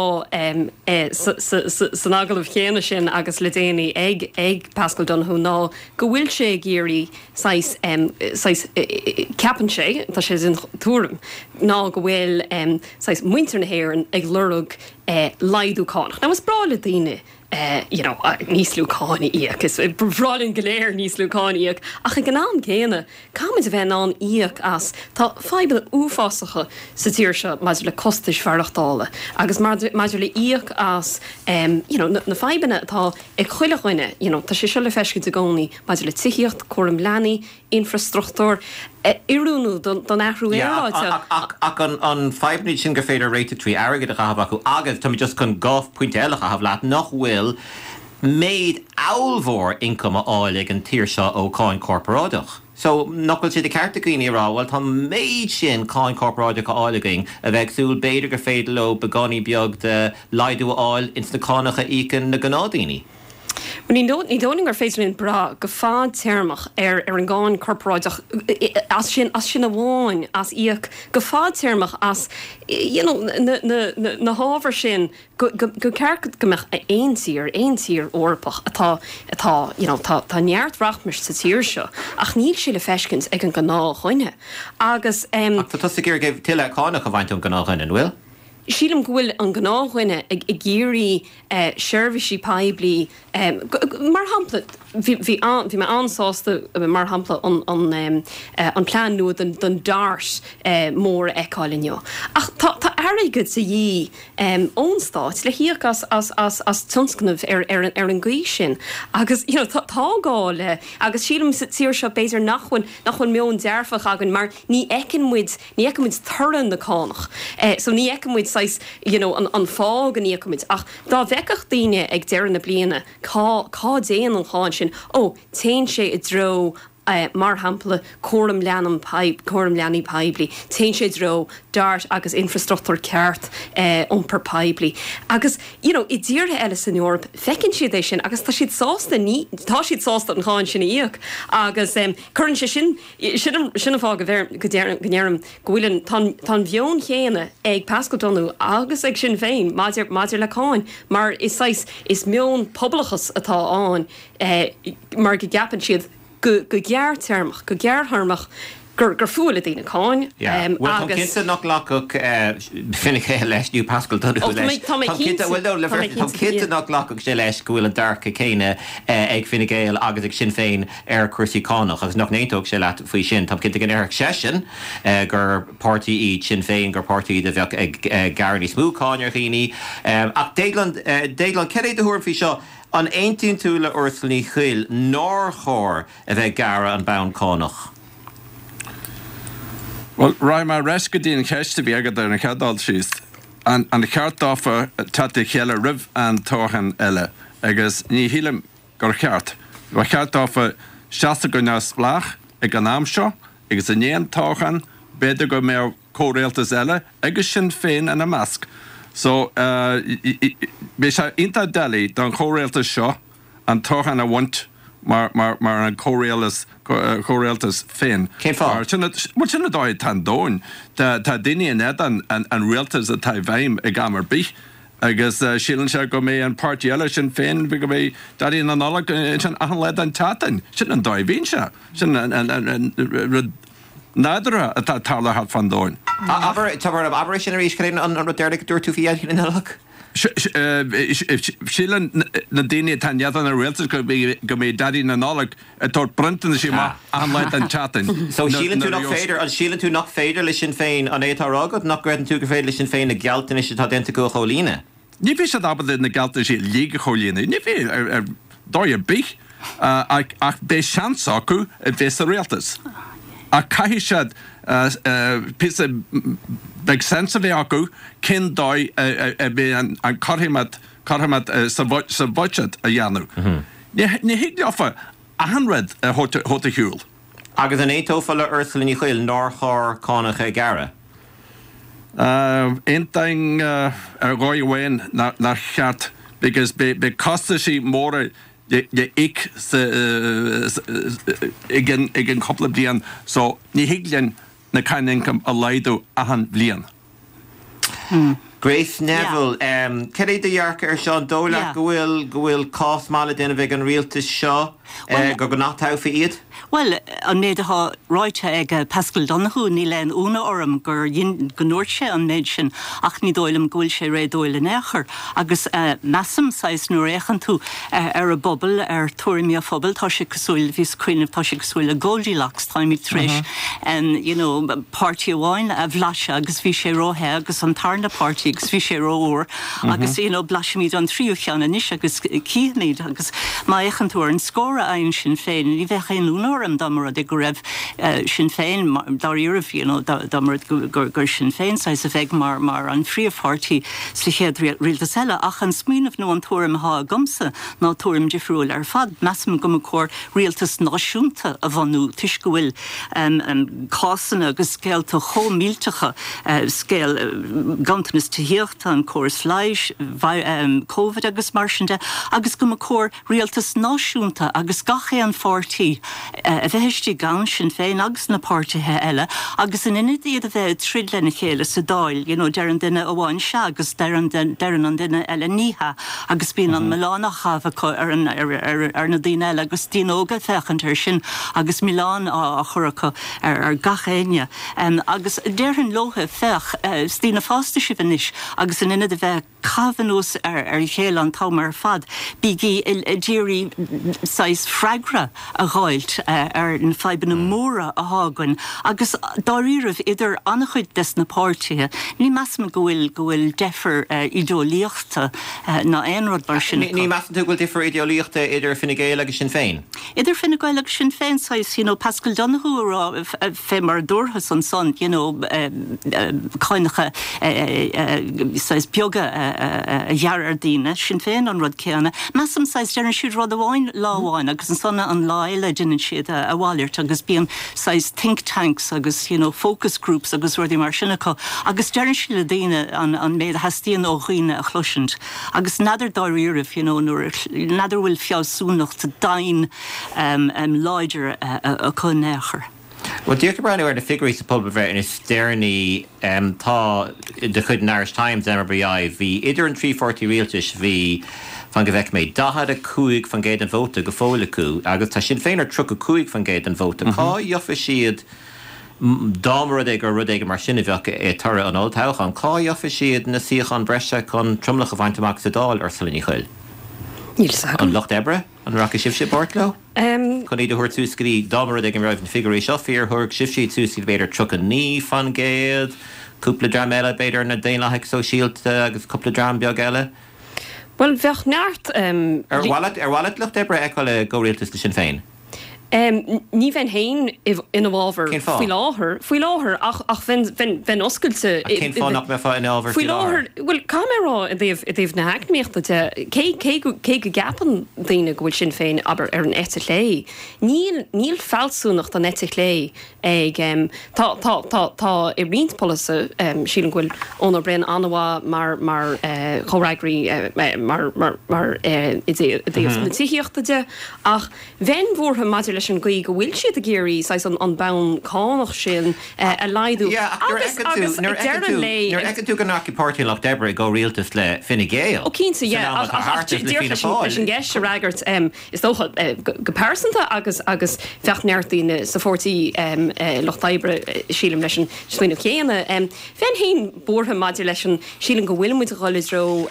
C: sa sa san agallamh chéanna sin agus le déanaí ag ag Paschal Donohoe ná go bhfuil sé ag iarraidh saghas, saghas, ceapann sé, tá sé den tuairim, ná go bhfuil, saghas, muintir na hÉireann ag lorg laghdú cánach. Now is breá le daoine, you know, níos lú cáin a íoc, is breá linn go léir níos lú cáin a íoc, ach ag an am céanna, caithfimid a bheith in ann íoc as, tá fadhbanna uafásacha sa tír seo maidir le costais mhaireachtála agus maidir le íoc as, you know, na fadhbanna atá ag chuile dhuine, you know, tá sé seo le feiscint i gcónaí maidir le tithíocht, cúram leanaí, infreastruchtúr, oiriúnú don athrú aeráide.
A: Ach ach an fadhbanna sin gur féidir réiteach trí airgead a chaitheamh acu agus tá mé just chun 2 phointe eile a chaitheamh leat, nach bhfuil méid ollmhór ioncaim á fháil ag an tír seo ó cháin chorparáideach. So, nach bhfuil sé de cheart ag daoine a rá, bhuel tá an méid sin cáin chorparáideach á fháil againn, a bheith ag súil b'fhéidir gur féidir leo beagáinín beag de laghdú a fháil ins na cánacha a íocann na gnáthdhaoine?
C: Bhuel, ní dóigh liom gur féidir linn brath go fadtéarmach ar ar an gcáin chorparáideach as sin, as sin amháin, as íoc go fadtéarmach as you know na na na na hábhair sin go go go ceart go mbeadh aon tír, aon tír Eorpach atá atá you know tá tá neart rachmais sa tír seo ach níl sé le feiscint ag an ngnáthdhuine agus
A: em. Ach tá tusa ag iarraidh tuilleadh cánach a bhaint ón ngnáthdhuine, an bhfuil?
C: Sílim go bhfuil an gnáthdhuine ag ag iarraidh seirbhísí poiblí, mar shampla, bhí bhí bhí mé an-sásta, mar shampla, an an an plean nua don don DART mór a fheiceáil inniu. Ach tá tá airgead de dhíth ón stát le híoc as as as as tionscnaimh ar ar ar an gcaoi sin agus you know tá tá gá le agus sílim sa tír seo b'fhéidir nach bhfuil nach bhfuil meon dearfach againn mar ní fheiceann muid Ní fheiceann muid toradh na cánach. So ní fheiceann muid saghas, you know, an an fáth go n-íocann muid. Ach dá bhfeicfeadh daoine ag deireadh na bliana cá cá dtéann an cháin sin, ó, téann sé i dtreo, mar shampla, cúram leanam cúram leanaí poiblí, téann sé i dtreo DART agus infreastruchtúr ceart iompar poiblí. Agus, you know, i dtíortha eile san Eoraip, feiceann siad é sin agus tá siad sásta, ní, tá siad sásta an cháin sin a íoc agus cuireann sé sin, Sin an fáth go ndeirim go bhfuil an, tá an, tá an mheon chéanna ag Paschal Donohoe agus ag Sinn Féin maidir, maidir le cáin mar is saghas, is meon pobalachas atá ann mar go gceapann siad go, go gearrtéarmach, go gearrthéarmach gur, gur fuath le daoine cáin
A: Yeah. Bhuel, táim
C: agus.
A: cinnte nach nglacfadh Fine Gael leis nó Paschal Donohoe
C: Ó, tá mé,
A: leis.
C: tá mé
A: Táim cinnte,
C: cinnte,
A: bhuel no, le
C: tá mé
A: bheith, táim
C: cinnte,
A: cinnte
C: yeah.
A: nach nglacfadh sé leis go bhfuil an dearcadh céanna ag Fine Gael agus ag Sinn Féin ar chúrsaí cánach agus nach n-aontódh sé leat faoi sin. Táim cinnte go ndéarfadh seisean gur páirtí iad Sinn Féin, gur páirtí iad a bheadh ag gearradh níos mó cáin ar dhaoine. Ach Déaglán, Déaglán, cad é do thuairim faoi seo? An aontaíonn tú le Ursula Ní Chuill nár chóir a bheith ag gearradh an bonn cánach?
E: Bhuel, raghaidh mé ar ais go dtí an cheist a bhí agat ar an chéad dul síos. An cheart dófa teacht le chéile roimh an toghchán eile? Agus ní shílim gur cheart. Ba cheart dófa seasamh go neamhspleách ag an am seo agus i ndiaidh an toghcháin, b'fhéidir go mbeadh. comhrialtas eile agus Sinn Féin ina measc. So, beidh sé iontach doiligh don chomhrialtas seo an toghchán a bhaint mar mar an comhrialtas féin.
A: Cén fáth?
E: Bhuel, sin an dóigh atá an domhan. Tá daoine in éadan an rialtas atá i bhfeidhm ag am ar bith agus síleann sé go mbeidh an páirtí eile, Sinn Féin, go mbeidh Daidí na Nollag ansin achan lá den tseachtain. Sin an dóigh a bhíonn sé. Sin an rud nádúrtha atá ag tarlú thart fán domhan.
A: Abair, abair é sin arís, cad é an rud deireanach a dúirt tú faoi Dhaidí na Nollag?
E: Síleann na daoine atá in éadan an rialtais go mbeidh Daidí na Nollag ag tabhairt bronntanais amach achan lá den tseachtain.
A: So síleann tú nach féidir, an síleann tú nach féidir le Sinn Féin, an é atá á rá agat, nach gcreideann tú gur féidir le Sinn Féin na gealltanais atá déanta acu a chomhlíonadh?
E: Ní bheidh siad ábalta na gealltanais uilig a chomhlíonadh, ní bheidh ar dóigh ar bith, ach beidh seans acu a bheith sa rialtas. Ach caithfidh siad píosa beag sense a bheith acu cén dóigh a mbeidh an cothromaíocht sa bhuiséad a dhéanamh. Ní thig leofa achan rud a thabhairt ar shiúl.
A: Agus an aontófá le Ursula Ní Chuill nár chóir cánacha a ghearradh?
E: Aontaím ar dhóigh amháin nár cheart because beidh costaisí móra le íoc i gceann cúpla bliain so ní thig linn na cáin ioncaim a laghdú achan bhliain.
A: Grace Neville, Cad é do dhearcadh ar seo? An dóigh leat go bhfuil go bhfuil cás maith le déanamh ag an rialtas seo go go n-atoghfaí iad?
F: Bhuel, an méid atá ráite ag Paschal Donohoe, níl aon ionadh orm gur go ndúirt sé an méid sin ach ní dóigh liom go bhfuil sé réadúil in aon chor. Agus measaim, saghas, nuair a fhéachann tú ar an bpobal, ar tuairimí an phobail, tá sé cosúil, bhíos ag cuimhneamh, tá sé cosúil le Goldilocks, táimid tar éis, you know, páirtí amháin a bhlaiseadh agus bhí sé róthe agus an tarna páirtí agus bhí sé rófhuar agus, you know, blaisimid an tríú cheann anois agus cífimid agus má fhéachann tú ar an scór a fhaigheann Sinn Féin, ní bheadh aon ionadh orm dá mba rud é go raibh Sinn Féin, dáiríribh, you know, dá mba rud gur gur Sinn Féin saghas a bheidh mar mar an phríomhpháirtí sa chéad rialtas eile. Ach an smaoineamh nó an tuairim atá agamsa ná tuairim difriúil ar fad. Measaim go mba chóir rialtas náisiúnta a bhunú toisc go bhfuil cásanna agus scéalta chomh millteacha, scéal ganntanas tithíochta, an córas leighis, Covid agus mar sin de, agus go mba chóir rialtas náisiúnta agus gach aon pháirtí a bheith istigh ann, Sinn Féin agus na páirtithe eile, agus in ionad iad a bheith ag troid lena chéile sa Dáil, you know, deireann duine amháin sea agus deireann an duine eile ní hea agus bíonn an milleán á chaitheamh acu ar an, ar, ar na daoine eile agus daoine óga ag féachaint air sin agus milleán á chur acu ar, ar gach éinne. Agus déarfainn leotha, féach, is daoine fásta sibh anois agus in ionad a bheith ag caitheamh anuas ar a chéile an t-am ar fad, bígí ag iarraidh saghas freagra a dh'fháilt ar na fadhbanna móra athá againn agus dáiríribh idir an-chuid des na páirtithe, ní measaim go bhfuil go bhfuil deifir ídeolaíochta ná aon rud mar sin
A: acu. Ní measann tú go bhfuil difear idéolaíochta idir Fine Gael agus Sinn Féin?
F: Idir Fine Gael agus Sinn Féin, saghas, you know, Paschal Donohoe a rá fé mar a dúrthas ansan, you know, cáinacha saghas beaga a ghearradh ar daoine, Sinn Féin an rud céanna. Measaim, saghas, deireann siad rud amháin lá amháin agus ansan an lá eile deineann siad a mhalairt agus bíonn saghas think tanks agus, you know, focus groups agus rudaí mar sin acu agus deireann siad le daoine an méid a theastaíonn ó dhaoine a chloisint. Agus n'fheadar dáiríribh, you know, nuair, n'fheadar an bhfuil fealsúnacht domhain láidir acu in aon chor.
A: Bhuel, díreach ag breathnú ar na figiúirí sa phobalbhreith is deireanaí, tá, de chuid an Irish Times, MRBI, bhí idir an trí pháirtí rialtais, bhí, fan go bhfeice mé, 45% den vóta go fóill acu agus tá Sinn Féin ar 35% den vóta. Cá gheofa siad Dá mba rud é gur rud éigin mar sin a bheadh i toradh an olltoghcháin, cá gheofa siad na suíocháin breise chun tromlach a bhaint amach sa Dáil, Ursula Ní Chuill?
C: Níl fhios agam.
A: An Lucht Oibre? An rachaidh sibhse i bpáirt leo? Chun iad a thabhairt suas go dtí, dá mba rud é go raibh na figiúirí seo fíor, thabharfadh sibhse iad suas go dtí b'fhéidir 39%, cúpla dream eile, b'fhéidir na Daonlathaigh Sóisialta agus cúpla dream beag eile.
C: Bhuel, bheadh neart.
A: Ar mhaith leat, ar mhaith leat Lucht Oibre a fheiceáil i gcomhrialtas le Sinn Féin?
C: Ní bheinn féin ina bhfabhar faoi láthair, faoi láthair, ach bheinn oscailte.
A: Ach cén fáth nach mbeifeá ina fhabhar
C: faoi láthair? Bhuel, caithfidh mé a rá i dtaobh, i dtaobh na heacnamaíochta de, cé, cé go, cé go gceapann daoine go bhfuil Sinn Féin, abair, ar an eite chlé, níl, níl fealsúnacht an eite chlé ag, tá, tá, tá, tá i roinnt polasaithe, sílim go bhfuil Eoin Ó Broin an-mhaith mar, mar chomhfhreagraí, mar, mar, mar i dtaobh na tithíochta de, ach Bheinn buartha maidir leis an gcaoi go bhfuil siad ag iarraidh saghas an bonn cánach sin a laghdú
A: agus agus ag deireadh an lae. Nuair a fheiceann tú go ndeachaigh Páirtí an Lucht Oibre i gcomhrialtas le Fine Gael
C: Ó cinnte, yeah, ach ach díreach leis an gceist a fhreagairt, is dócha, go pearsanta agus agus bheadh neart daoine sa Pháirtí Lucht Oibre, sílim, leis an smaoineamh chéanna. Bheinn féin buartha maidir leis an, sílim go bhfuil muid ag dul i dtreo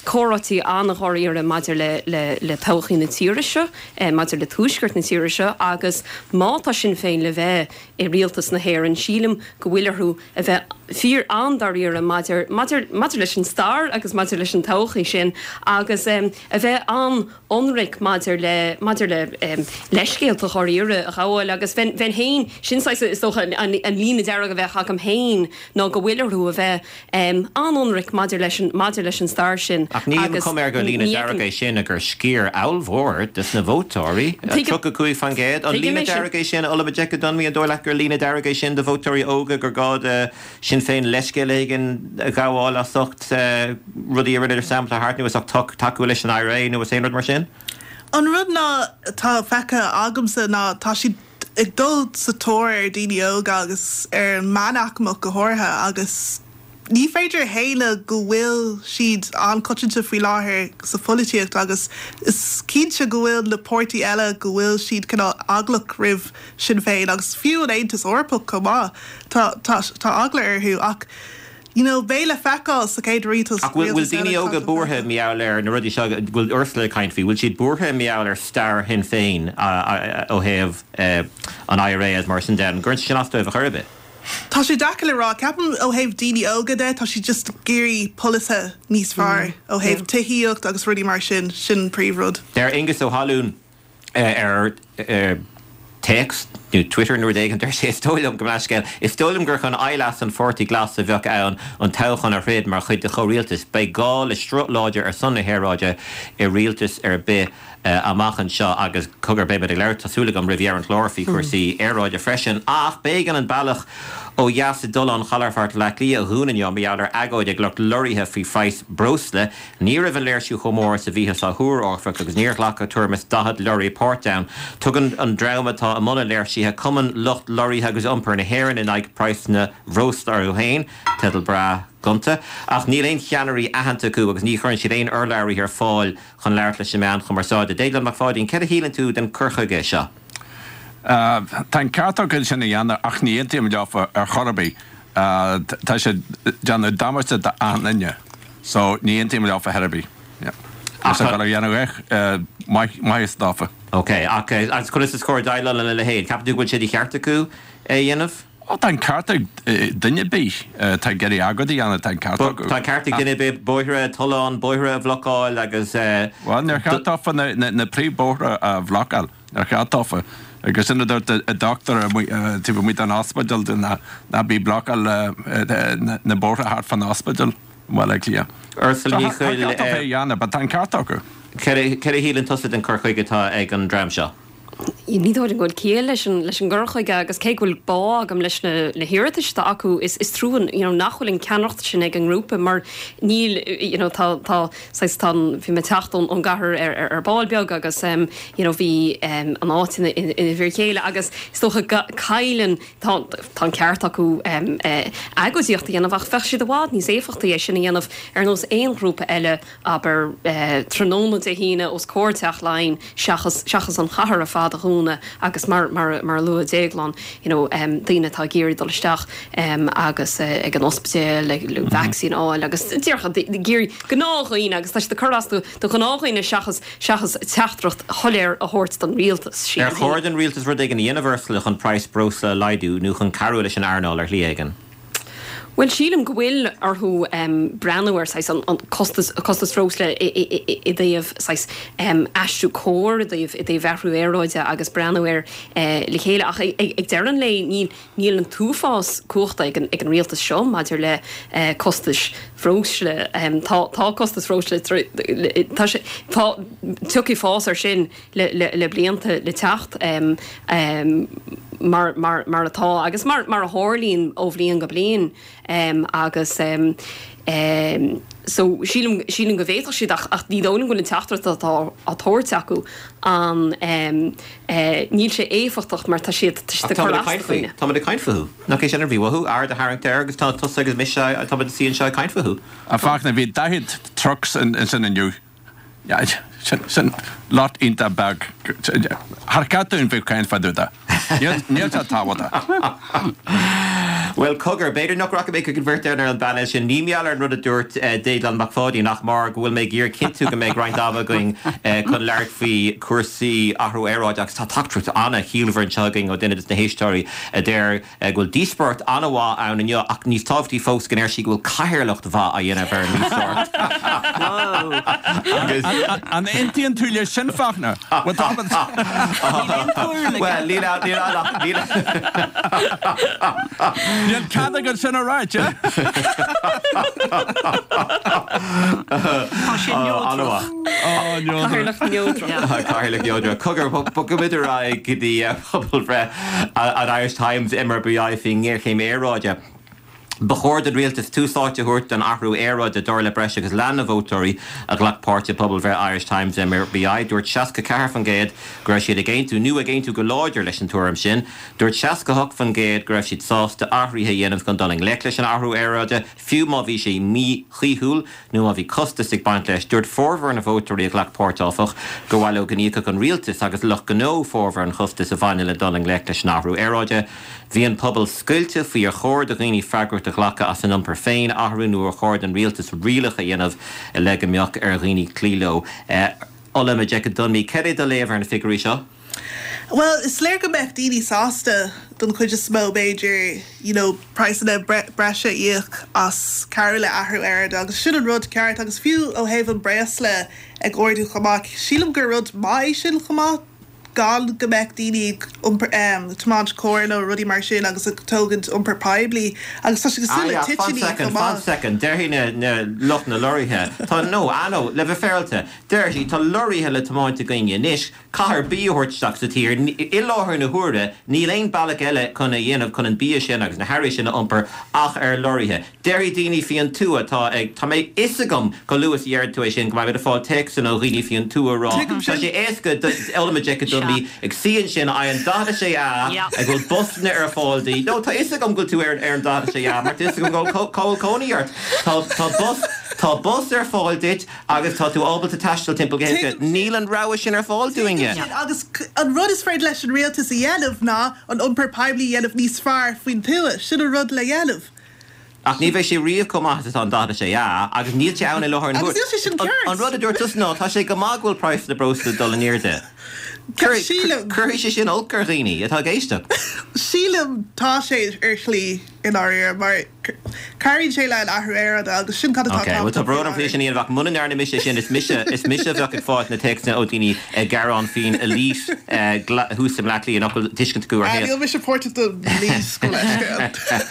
C: comhráití an-dháiríre maidir le le todhchaí na tíre seo, maidir le tuaisceart na tíre seo agus má tá Sinn Féin le bheith i rialtas na hÉireann, sílim go bhfuil orthu a bheith fíor an-dáiríre maidir maidir maidir leis an stair agus maidir leis an todhchaí sin agus a bheith an ionraic maidir le, maidir le leithscéalta dháiríre a ghabháil agus bheinn, bheinn féin, sin saghas, is dócha, an, an líne dearg a bheadh agam féin ná go bhfuil orthu a bheith an-ionraic maidir leis an, maidir leis an stair sin
A: Ach níl an chuma air gur líne dearg é sin ach gur sciar ollmhór de na vótóirí, 35%. An líne dearg é sin, Olabodeke Dunmi, an dóigh leat gur líne dearg é sin do vótóirí óga gur gá do Sinn Féin leithscéal éigin a ghabháil as ucht rudaí a rinneadar san am atá thart nó as ucht tacú leis an IRA nó as aon rud mar sin?
D: An rud ná atá feicthe agamsa ná tá siad ag dul sa tóir ar daoine óga agus ar an meánaicmeach go háirithe agus ní féidir a shéanadh go bhfuil siad an-choitianta faoi láthair sa pholaitíocht agus is cinnte go bhfuil na páirtí eile go bhfuil siad cineál eaglach roimh Sinn Féin agus fiú an Aontas Eorpach chomh maith, tá, tá, tá eagla orthu ach you know beidh le feiceáil sa chéad rialtas,
A: Ach bhfuil, bhfuil daoine óga buartha mar gheall ar na rudaí seo go bhfuil Ursula ag caint faoi, bhfuil siad buartha mar gheall ar stair Shinn Féin ó thaobh an IRA agus mar sin de, an gcuireann sé sin as dóibh ar chor ar bith?
D: Tá sé deacair le rá. Ceapaim ó thaobh daoine óga de, tá siad just ag iarraidh polasaithe níos fearr ó thaobh tithíocht agus rudaí mar sin, sin an príomhrud.
A: Deir Aengus Ó hAlúin. ar téacs nó Twitter nó rud éigin, deir sé, Is dóigh liom, gabh mo leithscéal, is dóigh liom gur chun aimhleas an Pháirtí Glas a bheadh ann an toghchán a throid mar chuid de chomhrialtas. Beidh gá le sruth láidir ar son na haeráide i rialtas ar bith amach anseo agus cogar beidh muid ag labhairt, tá súil agam, roimh dheireadh an chláir faoi chúrsaí aeráide freisin. Ach b'éigean an bealach ó dheas i dTollán Chalafort Bhaile Átha Cliath a dhúnadh inniu mar gheall ar agóid ag lucht lorraithe faoi phraghas breosla. Ní raibh an léirsiú chomh mór is a bhíothas á thuar, áfach, agus níor ghlac ach tuairim is 40 leoraí páirt ann. Tugann an dream atá i mbun an léirsithe, Cumann Lucht Lorraithe agus Iompair na hÉireann in aghaidh praghsanna bhreosla orthu féin, teideal breá gonta. Ach níl aon cheannairí aitheanta acu agus ní chuireann siad aon urlabhraithe ar fáil chun labhairt leis na meáin chumarsáide. Déaglán Mac Pháidín, céard a shíleann tú den cur chuige seo?
E: Tá an ceart acu é sin a dhéanamh ach ní aontaím leofa ar chor ar bith. Tá siad ag déanamh damáiste d'achan duine so ní aontaím leofa ar chor ar bith. Tá sé ag dul a dhéanamh maitheas dófa.
A: Ok, ach agus conas is cóir déileáil lena leithéid? Ceapann tú go bhfuil sé de cheart acu é a dhéanamh?
E: Ó tá an ceart ag duine ar bith atá ag iarraidh agóid a dhéanamh, tá an ceart acu.
A: Tá an ceart ag duine ar bith bóithre, tolláin, bóithre a bhlocáil agus.
E: Bhuel, níor cheart dófa na príomhbhóithre a bhlocáil. Níor cheart dófa. Agus sin a dúirt an dochtúir taobh amuigh den ospidéal dúinn, ná bí ag blocáil na bóithre thart fán ospidéal i mBaile Átha Cliath.
A: Ursula Ní
E: Tá an ceart acu é a dhéanamh, but tá an ceart acu.
A: Céard a shíleann tusa den cur chuige atá ag an dream seo?
C: Ní dóigh liom go bhfuil ciall leis an leis an gcur chuige agus cé go bhfuil bá agam leis na na hiarratais atá acu is is trua you know nach bhfuil an ceannaireacht sin ag an ngrúpa mar níl you know tá tá saghas tá an bhí mé ag teacht ón ón gcathair ar ar ar ball beag agus em you know bhí em an áit ina ina ina bhfir chéile agus is dócha go cailleann tá tá an ceart acu em eh agóidíocht a dhéanamh ach bheadh siad i bhfad níos éifeachtaí é sin a dhéanamh ar nós aon ghrúpa eile abair, tráthnóna Dé hAoine os comhair Teach Laighean seachas, seachas an chathair ar fad a dhúnadh agus mar, mar, mar a luaigh Déaglán, you know, daoine atá ag iarraidh dul isteach agus ag an ospidéal le vacsaín a fháil agus díreach ag iarraidh gnáthdhaoine agus tá siad ag cur as do, do ghnáthdhaoine seachas, seachas teachtaireacht shoiléir a thabhairt don rialtas,
A: sílim. Ar chóir don rialtas rud éigin a dhéanamh, Ursula, chun praghas breosla a laghdú nó chun cabhrú leis an earnáil ar shlí éigin?
C: Bhuel, sílim go bhfuil orthu breathnú ar saghas an costas, costas breosla i dtaobh saghas aistriú cóir i dtaobh, i dtaobh athrú aeráide agus breathnú air le chéile. Ach ag deireadh an lae níl, níl an t-uafás cumhachta ag an, ag an rialtas seo maidir le costais bhreosla. Tá, tá costas bhreosla, tá sé, tá, tiocfaidh fás air sin le blianta le teacht mar mar atá agus mar mar a tharlaíonn ó bhliain go bliain agus so sílim sílim go bhféadfadh siad ach ach ní dóigh liom go bhfuil an teachtaireacht atá á tabhairt acu an níl sé éifeachtach mar tá siad tá siad ag cur as do dhaoine.
A: Táimid ag caint fúthu. Nach é sin a bhí uathu, aird a tharraingt air agus tá tusa agus mise táimid ag suí anseo ag caint fúthu.
E: A Fachtna, bhí 40 trucks ansin inniu. Sin lot iontach beag. Char cheart dúinn bheith ag caint fá dtaobh de. Níl sé tábhachtach.
A: Bhuel, cogar, b'fhéidir nach rachaidh mé chuig an bheirt ar an bpainéal sin. Ní mar gheall ar an rud a dúirt Déaglán Mac Pháidín ach mar go bhfuil mé ag iarraidh cinntiú go mbeidh roinnt ama againn chun labhairt faoi chúrsaí athrú aeráide agus tá teachtaireacht an-chiallmhar anseo againn ó duine de na héisteoirí a deir go bhfuil díospóireacht an-mhaith ann inniu ach níos tábhachtaí fós go ndeir sí go bhfuil cathaoirleacht mhaith á dhéanamh ar an ndíospóireacht.
E: Agus. An aontaíonn tú leis sin, Fachtna? Bhuel, tá muid.
A: Bhuel, níl ann, níl ann ach, níl.
E: Níl cead agat sin a ráit, eh?
F: Tá sé neodrach.
C: Cathaoirleach neodrach.
A: Cathaoirleach neodrach. Cogar, bogfaimid ar aghaidh go dtí pobalbhreith an Irish Times, MRBI, faoin ngéarchéim aeráide. Ba chóir don rialtas tús áite a thabhairt don athrú aeráide, dar le breis agus leath na vótóirí a ghlac páirt i bpobalbhreith Irish Times MRBI. Dúirt 64% go raibh siad ag aontú nó ag aontú go láidir leis an tuairim sin. Dúirt 68% go raibh siad sásta athruithe a dhéanamh chun dul i ngleic leis an athrú aeráide, fiú má bhí sé míchaoithiúil. nó má bhí costas ag baint leis. Dúirt formhór na vótóirí a ghlac páirt, áfach, gur mhaith leo go n-íocfadh an rialtas agus lucht gnó formhór an chostais a bhaineann le dul i ngleic leis an athrú aeráide. Bhí an pobal scoilte faoi ar chóir do dhaoine freagracht a ghlacadh as a n-iompar féin a athrú nó ar chóir don rialtas rialacha a dhéanamh le go mbeadh ar dhaoine cloí leo. Ola Majekodunmi, cad é do léamh ar na figiúirí seo?
D: Bhuel, is léir go mbeadh daoine sásta, don chuid is mó b'fhéidir, you know, praghsanna breise a íoc as cabhrú le athrú aeráide agus sin an rud ceart agus fiú ó thaobh an breosla ag ardú chomh maith, sílim gur rud maith é sin chomh maith gan go mbeadh daoine ag iompar, tiomáint carr nó rudaí mar sin agus ag tógaint iompar poiblí agus tá sé cosúil le
A: Ah yeah, fan
D: toitíní
A: second,
D: chomh
A: fan
D: maith.
A: second, déarfaidh na, na lucht na lorraithe, tá, no, ah no, le bheith féaráilte, déarfaidh siad, tá lorraithe le tiomáint againne anois, Caithfear bia a thabhairt isteach sa tír. I láthair na huaire, níl aon bealach eile chun a dhéanamh chun an bia sin agus na hearraí sin a iompar ach ar lorraithe. Déarfaidh daoine faoin tuath atá ag, tá mé fhios agam chomh luath is a deireann tú é sin go mbeidh muid ag fáil téacsanna ó dhaoine faoin tuath a rá
D: Tuigim
A: tá
D: sin.
A: sé éasca do Ola Majekodunmi ag suí ansin ar an 46A ag bhfuil busanna ar fáil di. No, tá fhios agam go bhfuil tú ar an 46A mar tá fhios agam go bhfuil cónaí ort. Tá tá bus tá bus ar fáil duit. Agus tá tú ábalta taisteal timpeall go héasca. Níl an rogha sin ar fáil dúinne.
D: Tuigim sin, agus an rud is féidir leis an rialtas a dhéanamh ná an iompar poiblí a dhéanamh níos fearr faoin tuath. Sin an rud le dhéanamh.
A: Ach ní bheidh sé riamh chomh maith is atá an 46A, agus níl sé ann i láthair na
D: Agus
A: huaire.
D: níl sé sin ceart.
A: An rud a dúirt tusa ná, tá sé go maith go bhfuil praghas na breosla ag dul in airde.
D: Sílim.
A: Cuirfidh sé sin olc ar dhaoine atá ag éisteacht.
D: Sílim, tá sé ar shlí, i ndáiríre, mar. Cabhraíonn sé le an athrú aeráide agus sin cad atá
A: Ok, bhuel tá
D: tábhachtach faoi
A: brón orm faoi
D: láthair.
A: sin a dhéanamh ach muna ndearna mise sin is mise, is mise a bheadh ag fáilt na téacsanna ó daoine ag gearán faoin elite thuas i mBleá Cliath nach bhfuil tuiscint acu ar
D: Ah,
A: shaol.
D: níl mise páirteach don elite gabh mo leithscéal.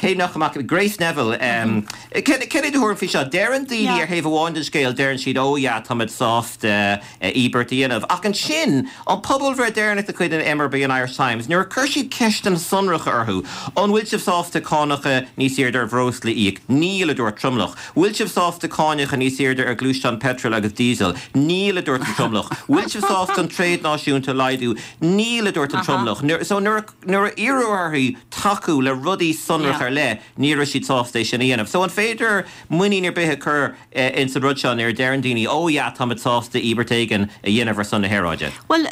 A: Cé nach amach, Grace Neville, céard é do thuairim faoi seo? Deireann daoine
F: Yeah.
A: ar thaobh amháin den scéal, deireann siad oh yeah táimid sásta íobairt a dhéanamh. Ach ansin, an pobalbhreith deireanach de chuid an MRB an Irish Times, nuair a chuir siad ceisteanna sonracha orthu, An bhfuil sibh sásta cánacha níos airde ar bhreosla a íoc? Níl, a dúirt tromlach. Bhfuil sibh sásta cánacha níos airde ar ghluaisteáin peitril agus díosail? Níl, a dúirt an tromlach. Bhfuil sibh sásta an tréad náisiúnta a laghdú? Níl, a dúirt an tromlach. So nuair a iarradh orthu tacú le rudaí sonracha ar leith, ní raibh siad sásta é sin a dhéanamh. So an féidir muinín ar bith a chur ins an rud seo nuair a deireann daoine, oh yeah, táimid sásta íobairt éigin a dhéanamh ar son na haeráide.
F: Bhuel,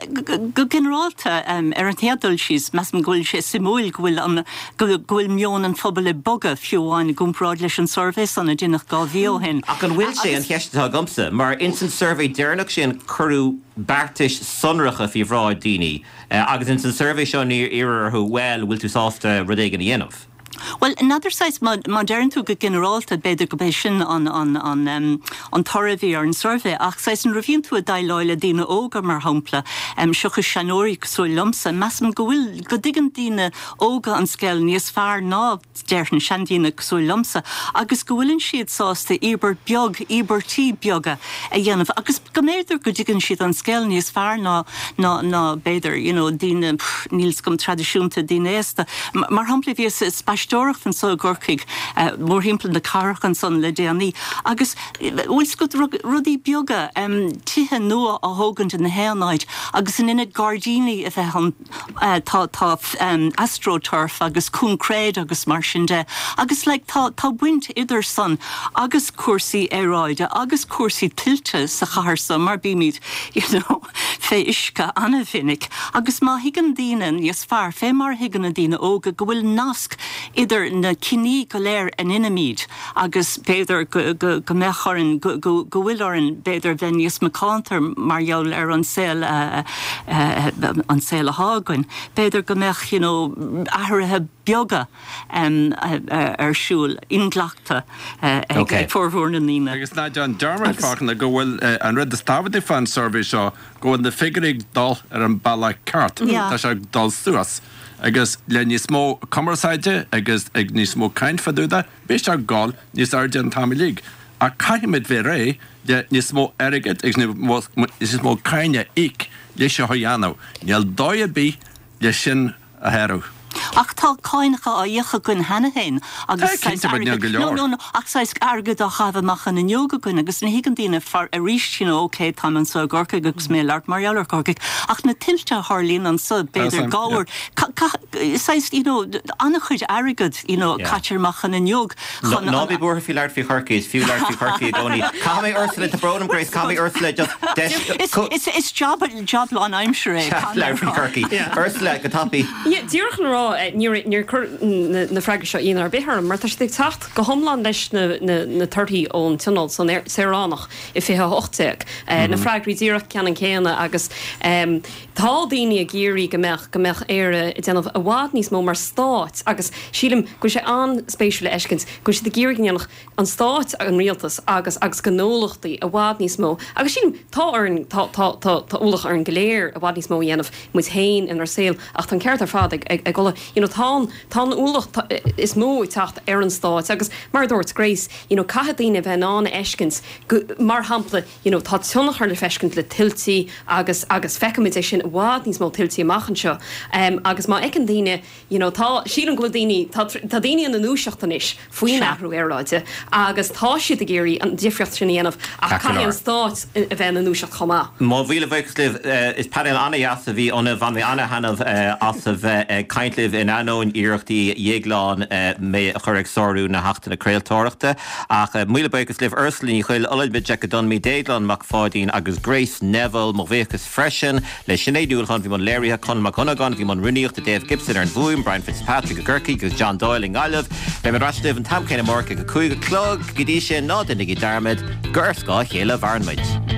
F: go ginearálta, ar an chéad dul síos, measaim go bhfuil sé suimiúil go bhfuil an, go bhfuil meon an phobail ag bogadh, fiú amháin i gcomparáid leis an suirbhé san a deineadh 2 mhí ó shin.
A: Ach an bhfuil sé, an cheist atá agamsa, mar ins an suirbhé deireanach sin cuireadh beartais sonracha faoi bhráid daoine agus ins an suirbhé seo níor iarradh orthu, bhuel, bhfuil tú sásta rud éigin a dhéanamh?
F: Bhuel, n'fheadar saghas, má deireann tú go ginearálta, b'fhéidir go b'é sin an, an, an, an toradh a bhí ar an suirbhé, ach saghas nuair a bhíonn tú ag déileáil le daoine óga, mar shampla, seachas seanóirí cosúil liomsa, measaim go bhfuil, go dtuigeann daoine óga an scéal níos fearr ná, déarfainn, seandaoine cosúil liomsa, agus go bhfuileann siad sásta íobairt beag, íobairtí beaga a dhéanamh agus go mb'fhéidir go dtuigeann siad an scéal níos fearr ná, ná, ná b'fhéidir, you know, daoine, níl 's agam, traidisiúnta, daoine aosta. Mar shampla, bhíos ag spaisteoireacht anso i gCorcaigh, mórthimpeall na cathrach ansan le déanaí agus, bhfuil 's agat, rudaí beaga, tithe nua á thógaint i ngach aon áit agus in ionad gairdíní a bheith ann, tá tá astroturf agus coincréid agus mar sin de agus like tá tá baint idir san agus cúrsaí aeráide agus cúrsaí tuilte sa chathair so mar bímid you know fé uisce an-mhinic agus má thuigeann daoine níos fearr fé mar a thuigeann na daoine óga go bhfuil nasc idir na cinní go léir a ndeinimid agus b'fhéidir go, go, go mbeadh orainn, go, go, go bhfuil orainn b'fhéidir bheith níos macánta mar gheall ar an saol a, an saol athá againn. B'fhéidir go mbeadh you know athruithe beaga ar siúl, inghlactha ag formhór na ndaoine.
E: Agus ná déan dearmad, Fachtna, go bhfuil an rud is tábhachtaí fán suirbhé seo go bhfuil na figiúirí ag dul ar an bealach ceart, tá sé ag dul suas. Agus le níos mó cumarsáide agus ag níos mó caint fá dtaobh de, beidh sé ag dul níos airde an t-am uilig. Ach caithfimid bheith réidh le níos mó airgid agus níos mó cáin a íoc le seo a dhéanamh. Níl dóigh ar bith le sin a shárú.
F: Ach tá cáinacha á íoc againn cheana féin agus
E: Tá, cinnte, but níl go
F: no,
E: leor.
F: no, no, ach saghas airgead á chaitheamh amach an fhuinneog againn agus ní thuigeann daoine far arís, you know, ok, táim anso i gCorcaigh agus mé ag labhairt mar gheall ar Chorcaigh, ach na tuilte a tharlaíonn anso, b'fhéidir
E: Tá,
F: dhá
E: yeah.
F: uair, ca, ca, saghas, you know, an-chuid airgead, you know,
A: Yeah.
F: caite amach an fhuinneog chun
A: Ná
F: an,
A: bí buartha faoi labhairt faoi Chorcaigh, is fiú labhairt faoi Chorcaigh i gcónaí. Caithfidh mé Ursula, tá brón orm Grace, caithfidh mé Ursula just deis,
F: Is, is, is job, job lánaimseartha é, caithfidh mé
A: labhairt faoi
F: a rá.
A: Chorcaigh.
D: Yeah.
A: Ursula, go tapaidh.
C: Yeah, díreach chun a rá, níor, níor chuir na, na freagraí seo ionadh ar bith orm, mar tá siad ag teacht go hiomlán leis na, na, na torthaí ón Tionól san Saoránach i 2018. Na freagraí díreach ceannann céanna agus tá daoine ag iarraidh go mbeadh, go mbeadh Éire ag déanamh i bhfad níos mó mar stát agus sílim go bhfuil sé an-spéisiúil a fheiscint go bhfuil siad ag iarraidh go ndéanfadh an stáit, an rialtas agus agus gnólachtaí i bhfad níos mó agus sílim tá orainn, tá, tá, tá, tá ualach orainn go léir i bhfad níos mó a dhéanamh muid féin inár saol ach tá an ceart ar fad ag, ag, ag Ola, you know tá an, tá an ualach is mó ag teacht ar an stáit agus mar a dúirt Grace, you know caithfidh daoine a bheith in ann a fheiscint go, mar shampla, you know tá tionchar le feiscint le tuiltí agus, agus feicfimid é sin i bhfad níos mó tuiltí amach anseo agus má fheiceann daoine You know, tá, sílim go bhfuil daoine, tá, tá daoine ina ndúiseacht anois faoin athrú aeráide agus tá siad ag iarraidh an difríocht sin a dhéanamh ach caithfidh an stát a bheith ina ndúiseacht chomh maith.
A: Mo mhíle buíochas libh. Is painéal an-dheas a bhí ionaibh. Bhain mé an-thaitneamh as a bheith ag caint libh in ainneoin iarrachtaí Dhéagláin mé a chur ag sárú na hAchtanna Craoltóireachta. Ach míle buíochas libh Ursula Ní Chuill, Olamide Ogunjimi, Déaglán Mac Pháidín agus Grace Neville. Mo bhuíochas freisin le Sinéad Ní Uallacháin a bhí i mbun léirithe, Conall Mac Dhonnagáin a bhí i mbun rúnaíochta, Dave Gibson ar an bhfuaim, Brian Fitzpatrick i gCorcaigh agus John Doyle i nGaillimh. Beidh mé ar ais libh an t-am céanna amárach ag a 5 a chlog. Go dtí sin, ná déanaigí dearmad gur ar scáth a chéile a mhaireann muid.